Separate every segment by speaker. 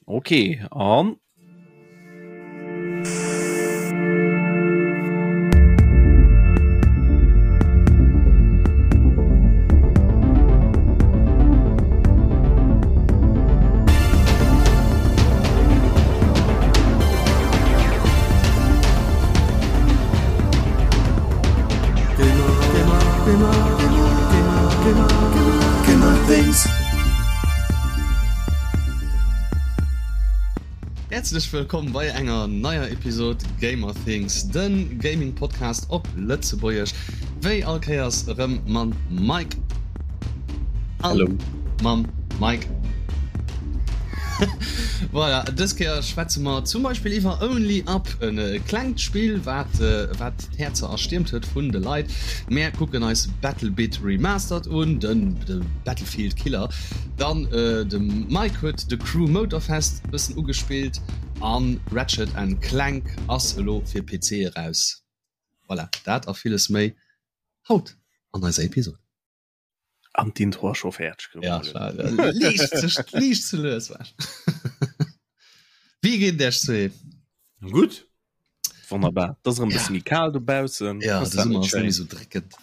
Speaker 1: Okay, an
Speaker 2: Häerzlech wëllkomm bei enger neier Episod Gamer Things, den Gaming Podcast op Lëtzebuergesch. Wéi all Kéiers erëm mam Mike an mam Mike. Voilà, dës Kéier schwätze mer zum Beispill iwwer Only Up, en klengt Spill wat wat d'Häerzer erstiermt huet vun de Leit. Mär kucken eis Battlebit Remastered un, den de Battlefield Killer. Dann de Mike huet The Crew Motorfest e bëssen ugespillt an Ratchet and Clank ass elo fir PC eraus. Voilà, dat a villes méi haut an eiser Episode.
Speaker 1: An d'Intro ass scho fäerdeg.
Speaker 2: Ja, liicht ze, liicht ze lues war. Wéi geet et Iech zwee?
Speaker 1: Gutt. Wonnerbar. Et ass erëm e bësse méi kal dobaussen.
Speaker 2: Ja, de Summer ass net méi sou dréckend.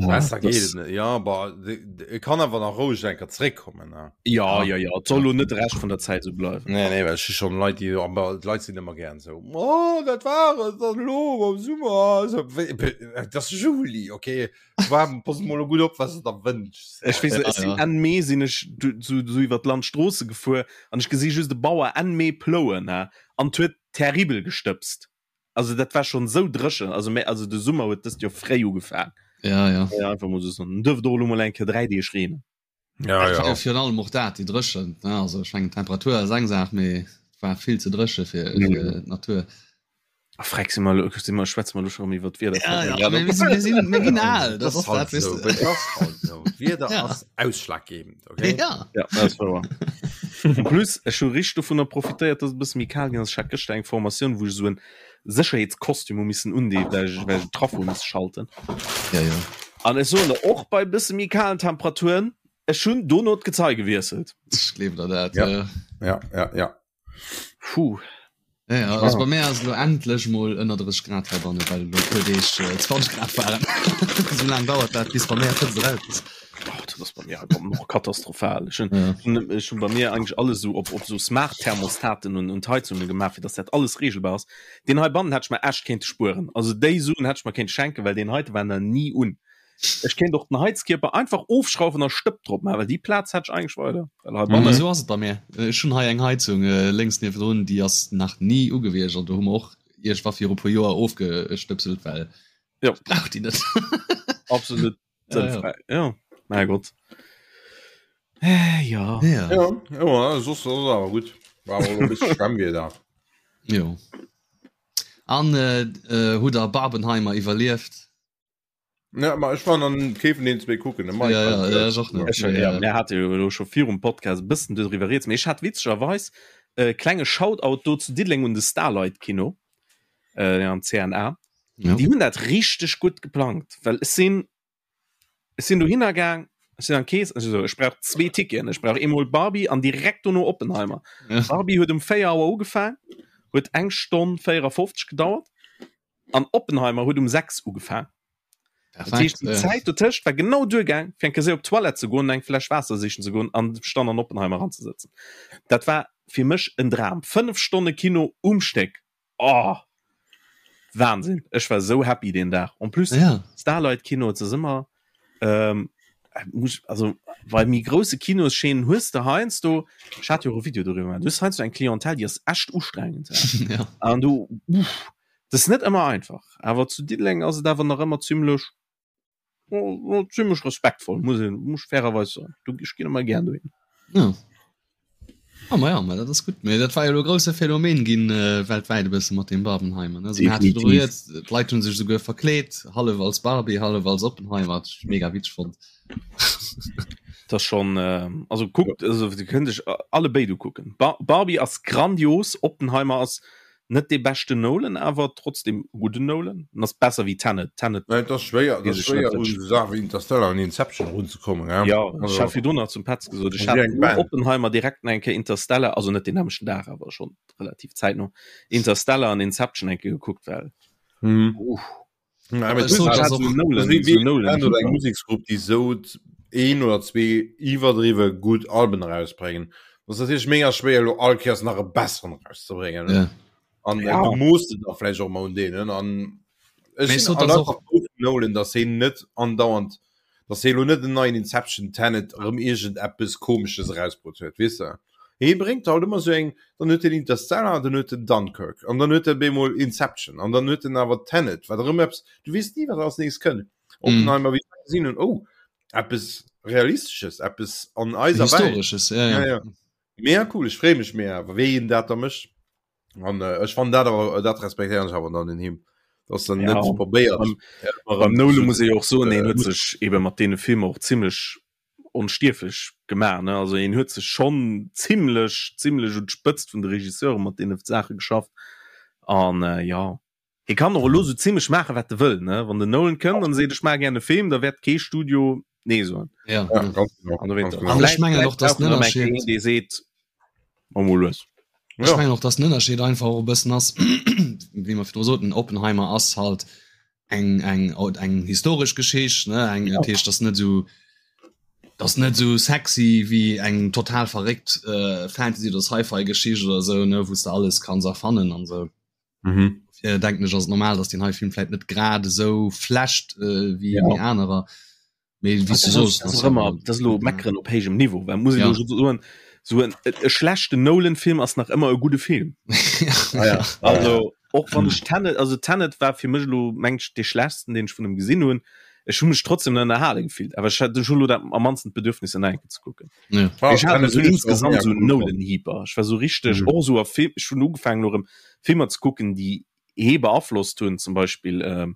Speaker 3: Besser geet et net. Ja, bah, e kann awer nach roueg eng Kéier zréckkommen, ne?
Speaker 1: Ja, ja, ja. Et soll lo net de Rescht vun der Zäit esou bleiwen.
Speaker 3: Nee, nee, well ech hu schonn Leit, déi, aber d'Leit sinn ëmmer gären esou, Oh, dat war et dann elo am Summer. Esou, wéi, et ass Juli, okay? Warm, pass mol gutt op, was du der wënschs.
Speaker 1: Ech weess, ech sinn Enn Mee sinn ech sou sou iwwer d'Landstroosse gefuer an ech gesi just e Bauer Enn Mee plouen ha an 't huet terribel gestëbst. Also dat war schonn sou dréchen, also mä also de Summer huet dëst Joer fréi ugefaang.
Speaker 2: Ja, ja.
Speaker 1: Ja, einfach mol sou soen. En duerft och elo mol eng Kéier 3 Deeg reenen.
Speaker 2: Ja, ja. ja. Virun allem och dat, déi Dréchent, ne? Also ech mengen d'Temperatur ass eng Saach, mee et war vill ze dréche fir, mm. fir d'Natur.
Speaker 1: Ah, freck, si mer, si mer, schwätze mer lo schon iwwer d'Wieder.
Speaker 2: Ja, ja, mir, mir, sinn, mir, sinn, mir ginn al,
Speaker 3: das ass halt so. Das ass halt so. D'Wieder ja. ass ausschlaggebend, okay?
Speaker 2: Ja.
Speaker 1: Ja, dat ass wouer. En plus, ech hu richteg dovunner profitéiert, dass et e bësse méi kal ginn ass. Ech hat gëschter eng Formatioun, wou ech esou en Sécherheetskostüm hu missen undeen, well ech, well ech den Trafo hu misse schalten.
Speaker 2: Ja, ja.
Speaker 1: An ech soen der, och bei bësse méi kalen Temperaturen, ech hunn dono d'Gezei gewiesselt.
Speaker 2: Ech gleewen der dat.
Speaker 3: Ja, ja, ja, ja.
Speaker 1: Puh.
Speaker 2: Ja, ja, also bei mir ass elo endlech mol ënner 30 Grad heibanne, well elo e puer Deeg 20 Grad waren. Esou laang dauert dat, bis bei mir d'Hëtzt eraus ass.
Speaker 1: Oh, dat ass bei mir halt och katastrophal. Ech hunn,
Speaker 2: Ja.
Speaker 1: hunn, ech hunn bei mir eigentlich alles esou op, op esou Smart Thermostaten und, und Heizungen gemaach, fir dass dat alles regelbar ass. Deen heibannen hätt ech mer echt kéinte spueren. Also déi Suen hätt ech mer kéinte schenken, well deen heite war nach ni un. Ech kéint och den Heizkierper einfach ofschrauwen a Stëpp drop maachen, well déi Plaz hätt ech eigentlich weider. Well
Speaker 2: Ma
Speaker 1: heibannen,
Speaker 2: esou ass et bei mir. Ech hunn hei eng Heizung äh, lénks niewendrun, déi ass nach ni ugewiescht an do hu mer och iergendwa viru puer Joer ofgestëpselt, well
Speaker 1: Jo.
Speaker 2: ech brauch déi net.
Speaker 1: absolut
Speaker 2: Ja, ja.
Speaker 1: ja. Mein Gott. Äh, ja.
Speaker 2: Ja.
Speaker 3: Ja, ja, sos ass awer gutt. War awer e bësse Schwemmwieder.
Speaker 2: Jo. An äh, äh, hutt der Barbenheimer iwwerlieft?
Speaker 3: Ja, ma ech war an kee vun den zwee kucken. De Mike
Speaker 2: Ja, ja,
Speaker 3: hat
Speaker 2: ja, ech och net.
Speaker 1: Ech, ja, mir hate jo elo scho virum Podcast e bëssen doriwwer rieds, mee ech hat witzegerweis e klenge Shoutout do zu Diddeleng un de Starlight Kino äh, am CNA.
Speaker 2: Ja.
Speaker 1: Déi hunn dat richteg gutt geplangt, well ech sinn ech sinn dohinner gaang, ech sinn an d'Kees, ech so, ech brauch zwee Ticketen, ech brauch eemol Barbie an direkt dono Oppenheimer.
Speaker 2: Ja.
Speaker 1: Barbie huet um 4 Auer ugefaang, huet eng Stonn 54 gedauert an Oppenheimer huet um 6 ugefaang. Dat heescht,
Speaker 2: Perfekt.
Speaker 1: déi
Speaker 2: Ja.
Speaker 1: Zäit dotëscht war genau duergaang, fir eng Kéier séier op d'Toilette ze goen, eng Fläsch Waasser sichen ze goen an sech dann an Oppenheimer eranzesëtzen. Dat war fir mech en Dram. 5 Stonne Kino um Stéck. Oh! Wahnsinn. Ech war sou happy deen Dag. En plus,
Speaker 2: Ja.
Speaker 1: Starlight Kino, et ass ëmmer, ähm, muss, also bei méi grousse Kinoschaînen hues de heiansdo, ech hat jo och e Video doriwwer gemaach, du hues heiansdo eng Clientèle, déi ass echt ustrengend.
Speaker 2: Ja.
Speaker 1: An du, uff, dat ass net ëmmer einfach. Awer zu Diddeleng ass et awer nach ëmmer zimmlech, zimmlech respektvoll, muss een, muss ech fairerweis soen. Du, ech ginn ëmmer gär dohin.
Speaker 2: Ja. Ah, ma ja, ma dat ass gutt. Mee dat war jo elo e grousse Phänomen ginn äh, weltwäit e bësse mat deem Barbenheimer. Ne? Also, mir hate
Speaker 1: Definitiv.
Speaker 2: virdru rieds, d'Leit hunn sech souguer verkleet, hallef als Barbie, hallef als Oppenheimer. Dat ech mega witzeg fonnt.
Speaker 1: Das ass schon, äh, also kuckt, also Dir kënnt iech alle béid ukucken. Bar Barbie ass grandios, Oppenheimer ass. Net dee beschten Nolan, awer trotzdem e gudden Nolan. En ass besser wéi Tenet. Tenet
Speaker 3: Nee, et ass schwéier, et
Speaker 1: weess
Speaker 3: ass
Speaker 1: ech net,
Speaker 3: schwéier
Speaker 1: wat
Speaker 3: un
Speaker 1: ech.
Speaker 3: esou Saache wéi Interstellar an Inception erunzekommen, gell?
Speaker 1: Jo, ech
Speaker 3: Also,
Speaker 1: hat virdrun nach zum Petz gesot, ech
Speaker 3: wéi
Speaker 1: hat
Speaker 3: eng
Speaker 1: no
Speaker 3: Band.
Speaker 1: Oppenheimer direkt nach eng Kéier Interstellar, also net deen nämmlechten Dag, awer schonn relativ zäitno, Interstellar an Inception eng Kéier gekuckt, well,
Speaker 3: Mhm.
Speaker 1: uff.
Speaker 3: Ja,
Speaker 2: Ech sot, dass och
Speaker 3: Nolan oder eng Museksgrupp, déi sou een oder zwee iwwerdriwwe gutt Alben erausbréngen. Dat ass natierlech mega schwéier elo all Kéiers nach e besseren erauszebréngen.
Speaker 2: Ja.
Speaker 3: An
Speaker 1: Ja.
Speaker 3: du moosst de da vläicht och emmer un deenen. An ech
Speaker 2: Mee
Speaker 3: sinn
Speaker 2: sot, dass och
Speaker 3: Nolan, datt hien net andauernd, datt hie elo net en neien Inception, Tenet, erëm iergendeppes Komesches erausbrutt huet, weess de. Hie bréngt halt ëmmer sou eng, dann huet hien Interstellar, dann huet en Dunkirk an dann huet e bemol Inception an dann huet en awer Tenet, wat erëm eppes, du weess ni, wat als nächst kënnt. Oppenheimer, wéi ech gesinn hunn, oh, eppes Realistesches, eppes an eiser
Speaker 2: Welt. Historesches, ja, ja.
Speaker 3: Ja, ja. Mega cool, ech freeë mech mega, wéi hien dat da mécht. An äh, ech fannen dat awer, dat respektéieren ech awer dann un him, dass en
Speaker 1: Ja.
Speaker 3: net probéiert.
Speaker 1: Beim,
Speaker 3: ëmmer
Speaker 1: beim
Speaker 3: erëm
Speaker 1: Nolan
Speaker 3: zu,
Speaker 1: muss ee jo och soen,
Speaker 3: äh,
Speaker 1: hien huet sech ebe mat deene Filmer och zimmlech onstierflech gemaach, ne? Also hien huet sech schonn zimmlech, zimmlech un d'Spëtzt vun de Regisseure mat deene Saache geschafft. An äh, ja, hie kann och elo sou zimmlech maache wat e wëll, ne? Wann den Nolan kënnt an seet, ech maache gär e Film, da wäert kee Studio nee soen.
Speaker 2: Ja,
Speaker 3: Ja,
Speaker 2: ja.
Speaker 3: ganz genau,
Speaker 1: An dowéinst,
Speaker 3: ganz genau.
Speaker 2: An ech
Speaker 1: vläicht,
Speaker 2: mengen
Speaker 1: vläicht
Speaker 2: och, dass
Speaker 1: brauch en
Speaker 2: den
Speaker 1: erëm eng Kéier
Speaker 2: Ënnerscheed
Speaker 1: een, dee seet, mach mol lues.
Speaker 2: Ech
Speaker 3: Ja.
Speaker 2: mengen och, dass den Ënnerscheed einfach och e bëssen ass, wéi mer virdru soten, Oppenheimer ass halt eng eng eng historesch Geschicht, ne, eng, dat heescht, dat ass net esou, dat ass net esou sexy wéi eng total verréckt äh, Fantasy oder Sci-Fi-Geschicht oder esou, ne, wou s de alles kanns erfannen an esou.
Speaker 3: Mhm.
Speaker 2: Dofir denken ech, ass et normal, dass deen hei Film vläit net grad esou flasht äh, wéi
Speaker 1: Ja.
Speaker 2: wéi anerer. Mee wéi s du soos,
Speaker 1: Das ass ëmmer, das ass elo meckeren op héijem Niveau, well muss ich
Speaker 2: Ja.
Speaker 1: elo soen, so en e schlechten Nolan-Film ass nach ëmmer e gudde Film.
Speaker 3: Ah, ja.
Speaker 1: Also och wann ech Tenet, also Tenet war fir mech elo meng ech dee schlechtsten, deen ech vun em gesinn hunn. Ech hu mech trotzdem ënnerhale gefillt, awer ech hat ech hu lo dat am mannsten d'Bedürfnis en nach eng Kéier ze kucken.
Speaker 2: Ja.
Speaker 3: Ah,
Speaker 1: Ech hat
Speaker 3: Tenet
Speaker 1: esou
Speaker 3: hunn ech och
Speaker 1: insgesamt
Speaker 3: mega
Speaker 1: esou
Speaker 3: cool fonnt.
Speaker 1: Nolan-Hyper. Ech war esou richteg
Speaker 3: Mhm.
Speaker 1: och esou a Film, ech hunn ugefaangen elo erëm Filmer ze kucken, déi hee beaflosst hunn, zum Beispill ähm,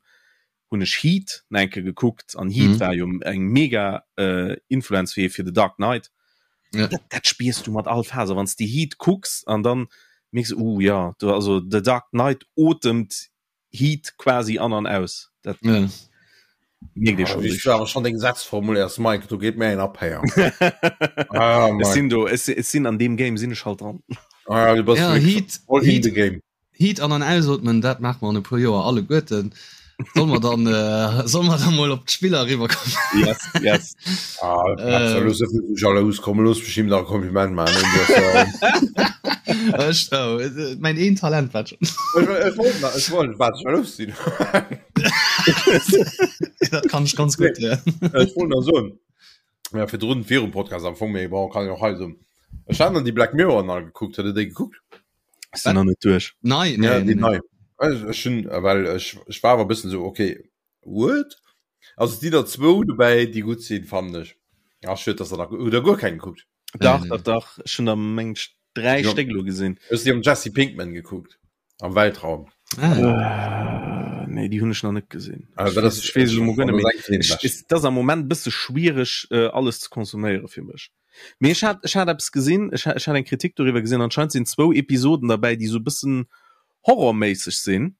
Speaker 1: hunn ech Heat nach eng Kéier gekuckt an Heat
Speaker 2: Mhm.
Speaker 1: war jo eng mega äh, Influenz fir fir The Dark Knight.
Speaker 2: Ja.
Speaker 1: Dat, dat spiers du mat all Faser, wann s de Heat kucks an dann mierks du, uh ja, do, also The Dark Knight otemt Heat quasi an an aus. Dat
Speaker 2: Ja.
Speaker 1: mierkt ee
Speaker 3: Ah,
Speaker 1: schon
Speaker 3: wéi
Speaker 1: richtig.
Speaker 3: du awer schon deng Sätz formuléiers, Mike, do geet mir een ab héier. Ah,
Speaker 1: Ech
Speaker 3: Mike.
Speaker 1: sinn do, ech, ech sinn an deem Game sinn ech halt dran.
Speaker 3: Ah, du bass
Speaker 2: Ja,
Speaker 3: wirklich
Speaker 2: Heat,
Speaker 3: all in
Speaker 2: Heat,
Speaker 3: the game.
Speaker 2: Heat an an ausotmen, dat maache mer an e puer Joer alleguerten. Solle mer dann, äh, solle mer dann mol op d'Spiller eriwwerkommen?
Speaker 1: Yes, yes.
Speaker 3: Ah,
Speaker 2: Äh.
Speaker 3: los jalous, komm, looss mech him nach e Kompliment maachen. Du ass, äh,
Speaker 2: Ech, oh, äh, mäin een Talent wat schon.
Speaker 3: ech, ech wollt nach, ech wollt wat jalous sinn.
Speaker 2: Dat kann ech ganz gutt, ja.
Speaker 3: Ech wollt nach soen, ja, virdrun, virum Podcast am Fong, mee bon, kann ich och hei soen. Ech hat dann déi Black Mirror nach gekuckt. Hutt der déi gekuckt?
Speaker 1: Ech sinn nach net duerch.
Speaker 2: Nei,
Speaker 3: Ja,
Speaker 2: nee,
Speaker 3: déi
Speaker 2: nee, nee.
Speaker 3: nei. Ech, ech hunn, well ech, ech war awer e bëssen esou, okay, what? Also et sinn der zwou dobäi, déi gutt sinn, fannen ech. Ach, schued, dass der nach, hutt der guer keng gekuckt?
Speaker 1: Dach,
Speaker 2: Nee, nee.
Speaker 1: dach, dach. Ech hunn der meng ech 3
Speaker 3: Ja.
Speaker 1: Stéck elo gesinn.
Speaker 3: Ech hunn déi mam Jesse Pinkman gekuckt, am Weltraum.
Speaker 2: Ah.
Speaker 1: Äh, nee, déi hunn ech nach net gesinn.
Speaker 3: Also,
Speaker 1: Ech
Speaker 3: dat
Speaker 1: weess,
Speaker 3: ass,
Speaker 1: ech weess elo mol guer net
Speaker 3: dat
Speaker 1: méi.
Speaker 3: ass eng vun deene
Speaker 1: Ech,
Speaker 3: beschten.
Speaker 1: et ass am Moment e bësse schwiereg, äh, alles ze konsuméiere fir mech. Mee ech hat, ech hat eppes gesinn, ech, ech hat eng Kritik doriwwer gesinn, anscheinend sinn zwou Episoden derbäi, déi sou e bëssen horrorméisseg sinn.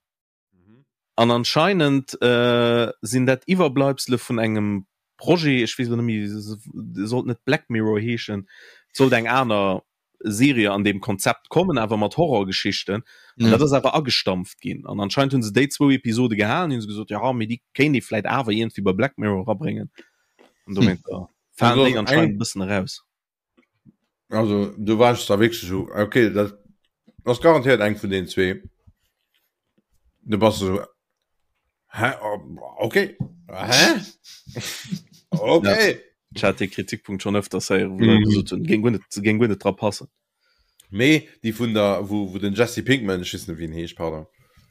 Speaker 1: An anscheinend äh, sinn dat Iwwerbleibsele vun engem Projet, ech weess elo net méi, sollt net Black Mirror heeschen, et sollt eng aner Serie an deem Konzept kommen, awer mat Horrorgeschichten. An
Speaker 2: Ja.
Speaker 1: dat ass awer agestampft ginn. An anscheinend hunn se déi zwou Episode gehalen, hunn se gesot, ja, mee déi kéint ee vläit awer iergendwéi bei Black Mirror erabréngen. An dowéinst
Speaker 3: Hm.
Speaker 1: falen
Speaker 3: Also
Speaker 1: déi anscheinend
Speaker 3: eng
Speaker 1: e bëssen eraus.
Speaker 3: Also du warst da wirklich so, okay, dat ass garantiert eng vun den zwee. Du bass so, hä? Oh, okay. Hä? Okay.
Speaker 1: Ech hat dee Kritikpunkt schonn öfters héieren, wou Leit
Speaker 3: Mhm.
Speaker 1: gesot hunn, géing guer net, géing guer net dra passen.
Speaker 3: Mee déi vun der, wou, wou den Jesse Pinkman, ech weess net wéi en heescht, pardon,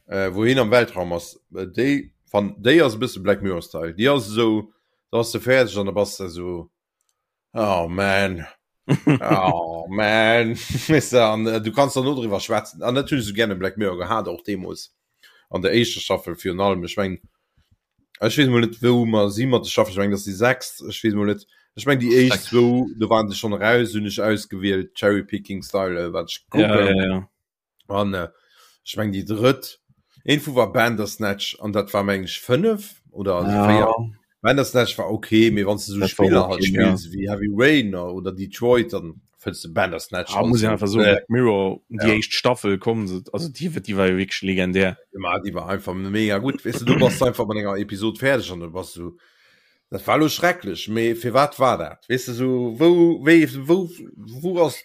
Speaker 3: äh, wou hien am Weltraum ass, äh, déi fan, déi ass e bësse Black Mirror Style. Déi ass esou, da bass de fäerdeg an da bass de esou, oh man, oh man, weess de, an äh, du kanns dann no driwwer schwätzen. An dat hunn ech esou gär un Black Mirror gehat, och deemools an der éischter Staffel virun allem. Ech meng, Ech weess mol net wou mer si mat de Staffel, ech mengen dat ass déi sechst, ech weess mol net, ech mengen déi éischt zwou do waren se schonn eraus, hunn ech ausgewielt Cherry Picking Style wat ech
Speaker 1: Ja,
Speaker 3: kucken
Speaker 1: ja, ja.
Speaker 3: an äh, Ech meng déi drëtt een vu war Bandersnatch an dat war meng ech 5 oder ja. 4. Bandersnatch war okay, mee wann du so Spiller halt spills ja. wéi Heavy Rain oder Detroit, dann fënns du Bandersnatch.
Speaker 1: Ah, muss ich einfach so äh, Black Mirror die ja. éischt Staffel kommen also die wird die war jo wirklich legendär.
Speaker 3: Ja, die war einfach mega gut. Weißt du, du bass einfach mat enger Episode fäerdeg an du bass so dat war lo schrecklech, mee fir wat war dat? Weißt du so wou wéi wou wou ass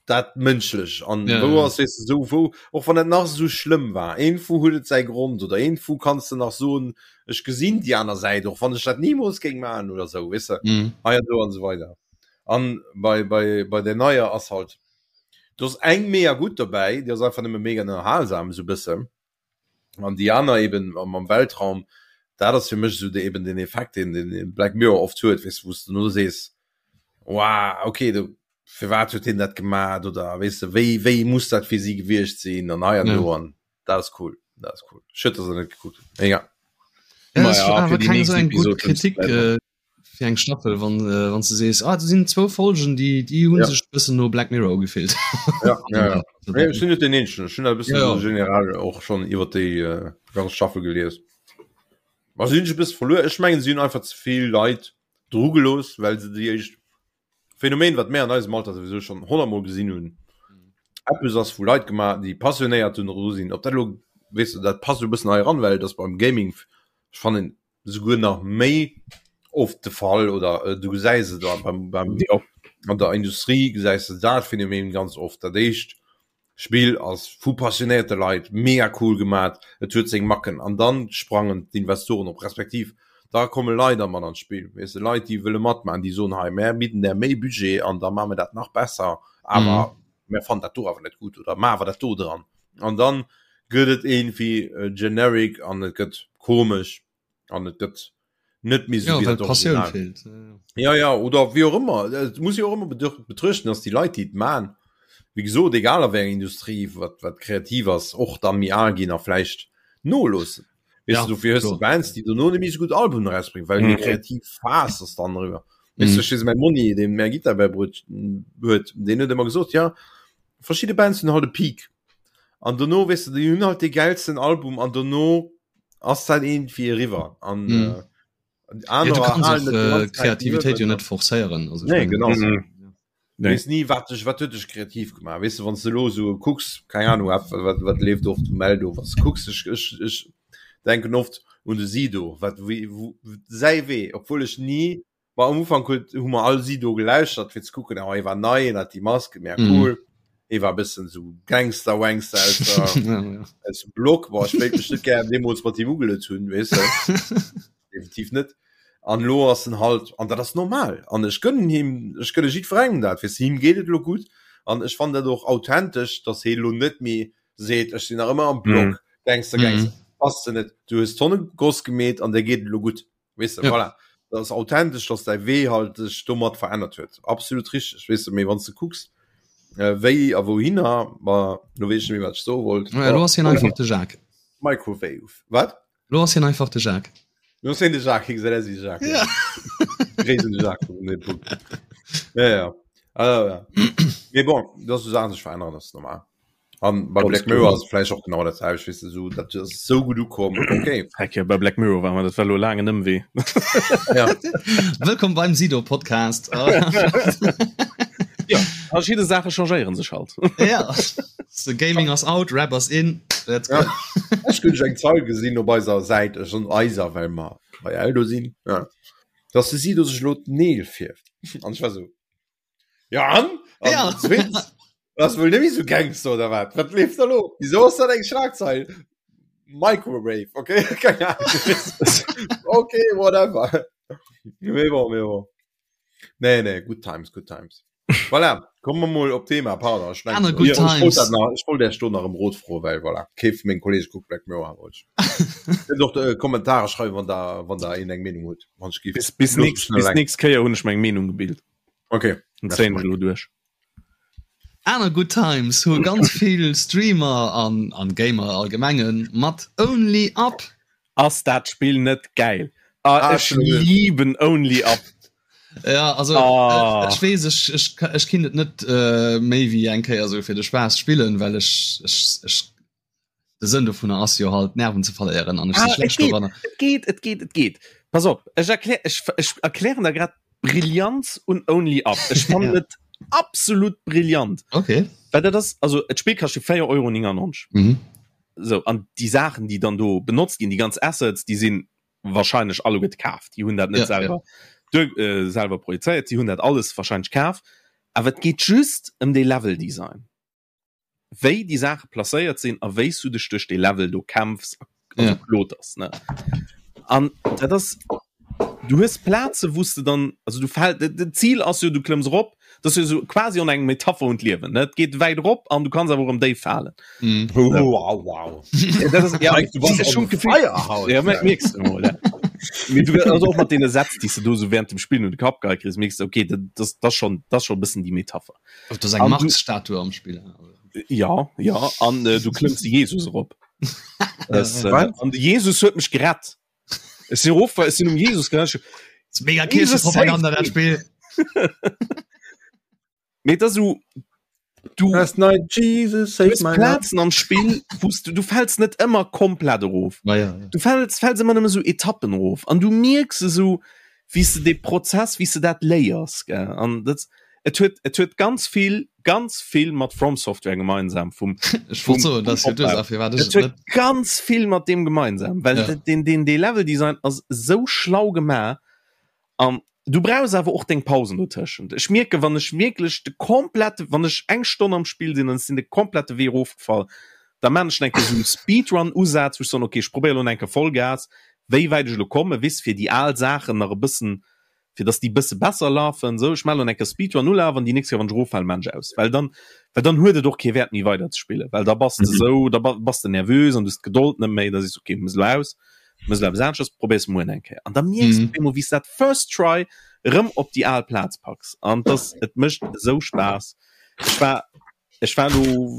Speaker 3: dat mënschlech an ja, wou ass weess de sou wou och wann et nach sou schlëmm war iergendwou huet et säi Grond oder iergendwou kanns de nach soen ech gesinn déi aner Säit och wann ech dat nimools géing maachen oder sou weess de mhm. hei an do an sou weider an bei bei bei der neier ass halt do ass eng mega gutt dobäi déi ass einfach nëmme mega ënnerhalsam sou bëssen an déi aner eben am Weltraum, dat ass fir mech esou de eben den Effekt deen den Black Mirror oft huet, weess de, wou s de no sees, wow, okay, do firwat huet hien dat gemat oder weess de, wéi wéi muss dat fir si gewiescht sinn an hei an do an dat ass cool, dat ass cool. Schued, dass der net gekuckt hutt, mee egal.
Speaker 2: Ja, das war awer keng esou eng gutt Kritik fir eng Staffel, wann äh, wann du sees ah, do sinn zwou Folgen, déi déi hunn ja. sech bëssen no Black Mirror ugefillt.
Speaker 3: Ja, ja, ja. Nee, ech sinn net den eenzegen, ech hunn dat e bëssen ja, ja. generell och schonn iwwer déi äh, ganz Staffel gelies. Ma si hunn sech e bësse verluer. Ech mengen, si hunn einfach ze vill Leit dru gelooss, well se déi éischt Phänomen, wat mär an eisem Alter souwisou schonn honnertmol gesinn hunn, eppes ass vu Leit gemaach, déi passionéiert dru sinn. Ob dat elo, weess de, dat passt e bëssen hei eran, well et ass beim Gaming, ech fannen, souguer nach méi oft de Fall oder du gesäis et beim, beim, ja. an der Industrie gesäis de dat Phänomen ganz oft. Dat éischt Spill ass vu passionéierte Leit mega cool gemat, et huet seng Macken an dann sprangen d'Investoren op, respektiv da komme Leit a mat an d'Spill, weess de, Leit déi wëlle matmachen, déi soen hei mär bidden där méi Budget an da maache mir dat nach besser, awer mm. mär fannen dat do awer net gutt oder maache dat do dran. An dann gëtt et iergendwéi generic an et gëtt komesch an et gëtt net méi
Speaker 2: sou wéi dat Original. Feelt.
Speaker 3: Ja ja oder wéi och ëmmer. Et muss ee och ëmmer betruechten, datt déi Leit déi et man, wéi gesot egal a wéi enger Industrie wat wat kreativ ass, och da méi al ginn a vläicht noloossen. Weess ja, du dofir hues du Bands déi dono net méi sou gutt Albumen erausbréngen, well mm. kreativ Phas ass dann eriwwer. Weess du, ech mäi Monni, deen mär Gittar bäibruet huet, deen huet ëmmer gesot, ja verschidde Bands hunn halt e Peak. An dono weess du, déi hunn halt dee gäilsten Album an dono ass dat iergendwéi eriwwer an mm.
Speaker 2: äh, aner ja, du kannst och, äh, Kreativitéit jo net forcéieren
Speaker 3: also nee, genau mhm. nee. Wees nie wat dech wat huet dech kreativ gemaach weess de wann du lo so kucks keine Ahnung wat wat, wat leeft oft um Eldo was kucks ech ech ech denken oft un de Sido wat wéi wou säi Wee obwuel ech nie War am Ufank huet hu mer all Sido gelauschtert fir ze kucken, oh hie war nei, en hat déi Mask, mega mhm. cool. Hie war e bëssen sou Gangster Wangster aus der, ja, ja. aus dem Block. Boah, ech wéilt mech net gär deemools mat him ugelet hunn, weess de. Definitiv net. An lo ass en halt, an dat ass normal. An ech gönnen him, ech gönne jiddwerengem dat, weess de, him geet et lo gutt. An ech fannen dat och authentesch, dass hie lo net méi seet, ech sinn nach ëmmer am Block, mm. Gangster, Gangster. Mm. Bass de net. Du hues Tonne Goss gemeet an der geet et lo gutt. Weißt du, ja. voilà. Das ist authentisch, dass dein Wee halt sich domat verändert huet. Absolut richtig. Weißt du, mee wann du kucks, äh, wéi a wouhinner, ma lo weess ech net méi, wat ech soe wollt.
Speaker 2: Ja, lo ass hien einfach de Jacques.
Speaker 3: Microwave. Wat?
Speaker 2: Lo ass hien einfach de Jacques.
Speaker 3: Lo ass hien de Jacques, hie gesäit aus wéi de Jacques. Ja. Gréissen de Jacques vun dem Punkt. Ja, ja. Also, ja. Mee bon, dass du Saachen sech verännern, das ist normal. An bei Black Mirror ass vläicht och genau dat selwecht, weess de, sou dat ass sou gutt ukomm, okay.
Speaker 1: Heck jo, bei Black Mirror war mer dat war lo laangen Ëmwee.
Speaker 2: Ja. Wëllkomm beim Sido Podcast.
Speaker 1: Ja, verschidde Saache changéieren sech halt.
Speaker 2: Ja, so Gaming ass out, Rap ass in. Let's go.
Speaker 3: Ja. Ech hunn eng Zeil gesinn op eiser Säit, ech soen eiser, well mer bei Eldo sinn, ja, dass de Sido sech elo d'Neel fierft. An ech war sou, Ja an? an ja. Zweetens, das wohl nämlich so Gangster oder was? Was lebt da lo? Wieso ist das eng Schlagzeil? Microwave, okay? Keine Ahnung. okay, whatever. Mee bon, mee bon. Nee, nee, good times, good times. Voilà, kommen wir mal op Thema, pardon. Ich,
Speaker 2: mein, good ich, times.
Speaker 3: Ich wollte ich wollte erst nach em Rot froen, weil voilà, kee vun mengen Kollegen guckt Black Mirror, wollte ich. Könnt och äh, Kommentare schreiben, wann da, wann da een eng Meenung huet. Wann ich
Speaker 1: bis, bis, nächst, bis nächst Kéier hunn ech meng Meenung gebilt.
Speaker 3: Okay.
Speaker 1: Zéien ech elo duerch.
Speaker 2: Aner Good Times hu ganz vill Streamer an an Gamer allgemengen mat Only Up.
Speaker 1: Ass dat Spill net gäil? Ah, ech lieben Only Up.
Speaker 2: Ja also ah. ech weess ech, ech, ech kinnt et net äh, méi wéi eng Kéier sou fir de Spaass spillen, well ech, ech, ech. De Sënn dovunner ass jo halt Nerven ze verléieren an ech si
Speaker 1: Ah, et
Speaker 2: schlecht
Speaker 1: geet,
Speaker 2: doranner.
Speaker 1: et geet, et geet, et geet. Pass op, ech erklär, ech, ech erklären der grad d'Brillanz un Only Up. Ech fannen
Speaker 2: Ja.
Speaker 1: et absolut brillant.
Speaker 2: Okay.
Speaker 1: Well dat ass, also et Spill kascht jo 4,99 Euro.
Speaker 2: Mhm.
Speaker 1: So, an déi Saachen, déi dann do benotzt ginn, déi ganz Assets, déi sinn wahrscheinlech alleguerte kaaft. Déi hunn dat net
Speaker 2: Ja, ja.
Speaker 1: selwer duer, äh, selwer projezéiert, si hunn dat alles wahrscheinlech kaf. Awer et geet just ëm dee Leveldesign. Wéi déi Saache placéiert sinn a wéi s du dech duerch dee Level do kämpfs a also
Speaker 2: Ja.
Speaker 1: kloters, ne? An dat ass, du hues Plaze wou s de dann, also du fäll, de, de Zil ass jo, du klëmms erop, dat ass jo sou quasi an eng Metapher un d'Liewen, ne? Et geet wäit erop an du kanns awer och erëm déif falen.
Speaker 2: Mhm.
Speaker 3: Wow, wow.
Speaker 1: Ja, dat ass, ja,
Speaker 3: Mike, du bass
Speaker 1: ech hun
Speaker 3: on
Speaker 1: d'Gefill,
Speaker 3: fire haut.
Speaker 1: ja, mer- mierks du mol, ja. Mee du, also och mat deene Sätz, déi s de do sou während dem Spillen un de Kapp geheit kriss, mierks de, okay, dat, dat, dat ass schon, dat ass schon e bëssen déi Metapher.
Speaker 2: Oh, das ist eng
Speaker 1: An du-
Speaker 2: Marx-Statue am Spiel.
Speaker 1: Ja, ja, an äh, du klëmms de Jesus erop. Das, äh,
Speaker 3: Wat?
Speaker 1: an de Jesus huet mech gerett. Ech sinn erof, ech sinn um Jesus gerett.
Speaker 2: Das ist mega
Speaker 1: Jesus
Speaker 2: Kirchenpropaganda,
Speaker 1: saved
Speaker 2: dat Spiel.
Speaker 1: Mee dat so du
Speaker 3: Last night Jesus
Speaker 1: du
Speaker 3: saved
Speaker 1: hues
Speaker 3: my life.
Speaker 1: Plazen am Spill, wous du, du fäls net ëmmer komplett erof.
Speaker 2: Ma ja, ja.
Speaker 1: Du fäls, fäls ëmmer nëmme sou Etappen erof. An du mierks esou, wéi s de dee Prozess, wéi s de dat léiers, gell. An dat, et huet, et huet ganz vill, ganz vill mat From Software gemeinsam vum,
Speaker 2: Ech wollt soen, dat ass jo d'Ursaach, firwat ech
Speaker 1: Et
Speaker 2: et
Speaker 1: huet
Speaker 2: net.
Speaker 1: ganz vill mat deem gemeinsam, well
Speaker 2: Ja.
Speaker 1: ja. den, den, dee Leveldesign ass esou schlau gemaach. An du brauchs awer och deng Pausen dotëschent. Ech mierken, wann ech wierklech de komplette, wann ech eng Stonn am Spill sinn an ech sinn de komplette Wee erofgefall, da maan ech eng Kéier esou e Speedrun-Usaz, wou ech soen, okay, ech probéiere lo eng Kéier Vollgas, wéi wäit ech elo kommen, weess, fir déi al Saachen nach e bëssen, fir dass déi e bësse besser lafen, esou. Ech maan lo eng Kéier Speedrun-Ulaf an déi nächst Kéier, wann ech eroffalen, maan ech aus, well dann, well dann huet et och kee Wäert méi weider ze spillen, well da bass de esou, da bass de nervös an du hues d'Gedold net méi, da sees de, okay, muss elo aus. Muss elo eppes aneschters, probéiers muer eng Kéier. An da mierks du
Speaker 2: Mhm.
Speaker 1: op eemol, wéi s dat first try erëm op déi al Plaz packs. An das, et mécht esou Spaass. Ech war, ech war elo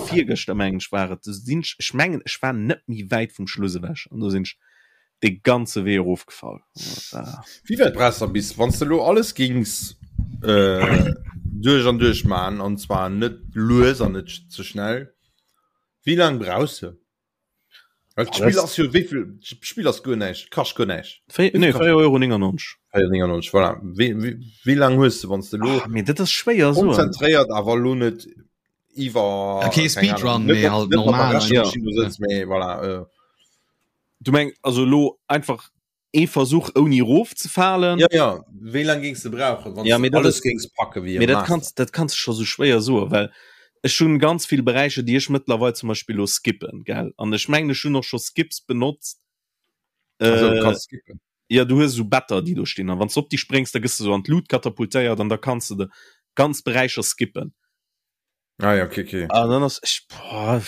Speaker 1: virgëschter, mengen ech, war et, do sinn ech, ech mengen, ech war net méi wäit vum Schluss ewech an do sinn ech de ganze Wee erofgefall. Dat war.
Speaker 3: Wéi wäit brauchs de bis, wann s de elo alles gings äh, duerch an duerch man, an zwar net lues an net ze schnell, wéi laang brauchs de? Well d'Spill ass jo wéivill d'Spill ass guer näischt, kascht guer näischt.
Speaker 1: Nee, 4,99 Euro.
Speaker 3: 4,99 voilà. Wéi, wéi, wéi laang hues de, wann s de lo
Speaker 1: Ah, mee dat ass schwéier soen.
Speaker 3: konzentréiert awer lo net iwwer
Speaker 2: Ja, kee
Speaker 3: keng
Speaker 2: Speedrun,
Speaker 3: Ahnung, net
Speaker 2: mee
Speaker 3: mat-
Speaker 2: halt
Speaker 3: net mat der
Speaker 2: normal
Speaker 3: Rechenmaschinn do sëtz, mee voilà. Äh.
Speaker 1: Du meng also lo einfach ee Versuch ouni erofzefalen?
Speaker 3: Ja, ja, wéi laang géings de brauchen, wann
Speaker 1: Ja,
Speaker 3: s
Speaker 1: mee
Speaker 3: de
Speaker 1: dat
Speaker 3: alles
Speaker 1: ass-
Speaker 3: géings packe wéi e
Speaker 1: Mee dat
Speaker 3: Master?
Speaker 1: kanns, dat kanns de scho sou schwéier soen, well ech hunn ganz vill Beräicher, déi ech mëttlerweil zum Beispill lo skippen, gell? An ech mengen, ech hunn och scho Skips benotzt.
Speaker 3: Also, du
Speaker 1: Äh,
Speaker 3: kanns skippen.
Speaker 1: ja, du hues esou Better, déi do stinn, an wann s de op déi spréngs, da gëss de sou an d'Lut katapultéiert an da kanns de de ganz Beräicher skippen.
Speaker 3: Ah ja, okay, okay.
Speaker 1: An dann ass ech, boah,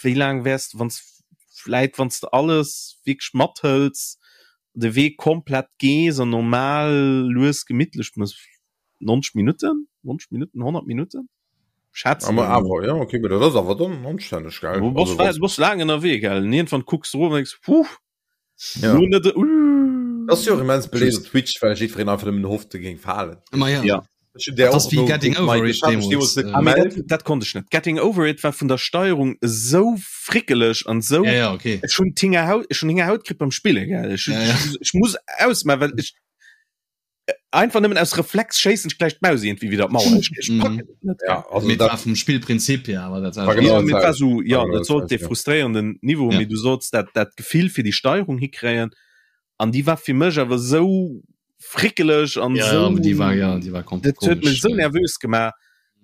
Speaker 1: wéi laang wäers de, wann s vläit wann s de alles wierklech mathëls, de Wee komplett gees an normal lues gemittlech mëss, 90 Minutten, 90 Minutten, 100 Minutten? Schätzen
Speaker 3: Awer,
Speaker 1: ech emol.
Speaker 3: awer, ja, okay, mee dat ass awer dann anstänneg, gell?
Speaker 1: Du bass,
Speaker 3: Also, wann
Speaker 1: du bass laang ënnerwee, gell? An iergendwann kucks de erof an denks, Huh,
Speaker 3: Ja.
Speaker 1: lo net, uh.
Speaker 3: Das ass jo och immens beléift op Twitch, well jiddwereen einfach nëmmen hofft, e géing falen.
Speaker 2: Ma ja.
Speaker 1: Ja.
Speaker 3: Ech hunn där
Speaker 2: Dat ass
Speaker 3: och
Speaker 2: wéi Getting
Speaker 3: nogeguckt,
Speaker 2: Over
Speaker 3: Mike,
Speaker 2: It
Speaker 3: ech hat mech
Speaker 2: deemools,
Speaker 3: deemools net
Speaker 2: äh.
Speaker 1: Ah, mee
Speaker 3: gemellt.
Speaker 1: dat, dat konnt ech net. Getting Over It war vun der Steierung esou frickeleg an esou.
Speaker 2: Ja, ja, okay.
Speaker 1: Ech hunn d'Hingerhaut, ech hunn Hingerhaut kritt beim Spillen, gell. Ech,
Speaker 2: Ja, ja.
Speaker 1: ech, ech muss ausmaachen, well ech einfach nëmmen aus Reflex schéissen ech gläich d'Maus irgendwie widder d'Mauer. Ech, ech
Speaker 2: Mhm.
Speaker 1: packen et net.
Speaker 3: Ja, also
Speaker 2: Mee
Speaker 3: dat
Speaker 2: war vum Spillprinzip hier awer dat
Speaker 3: war genau
Speaker 1: Ja,
Speaker 3: dat
Speaker 1: mee et war
Speaker 3: selwecht.
Speaker 1: so, ja,
Speaker 3: War genau
Speaker 1: dat sollt
Speaker 3: dat
Speaker 1: dee frustréierenden Niveau,
Speaker 2: Ja.
Speaker 1: mee du sollts dat, dat Gefill fir déi Steierung hikréien an déi war fir mech awer esou frickeleg an
Speaker 2: Ja,
Speaker 1: esou,
Speaker 2: ja, déi war, ja, déi war komplett
Speaker 1: dat huet mech
Speaker 2: komesch.
Speaker 1: esou nervös gemaach.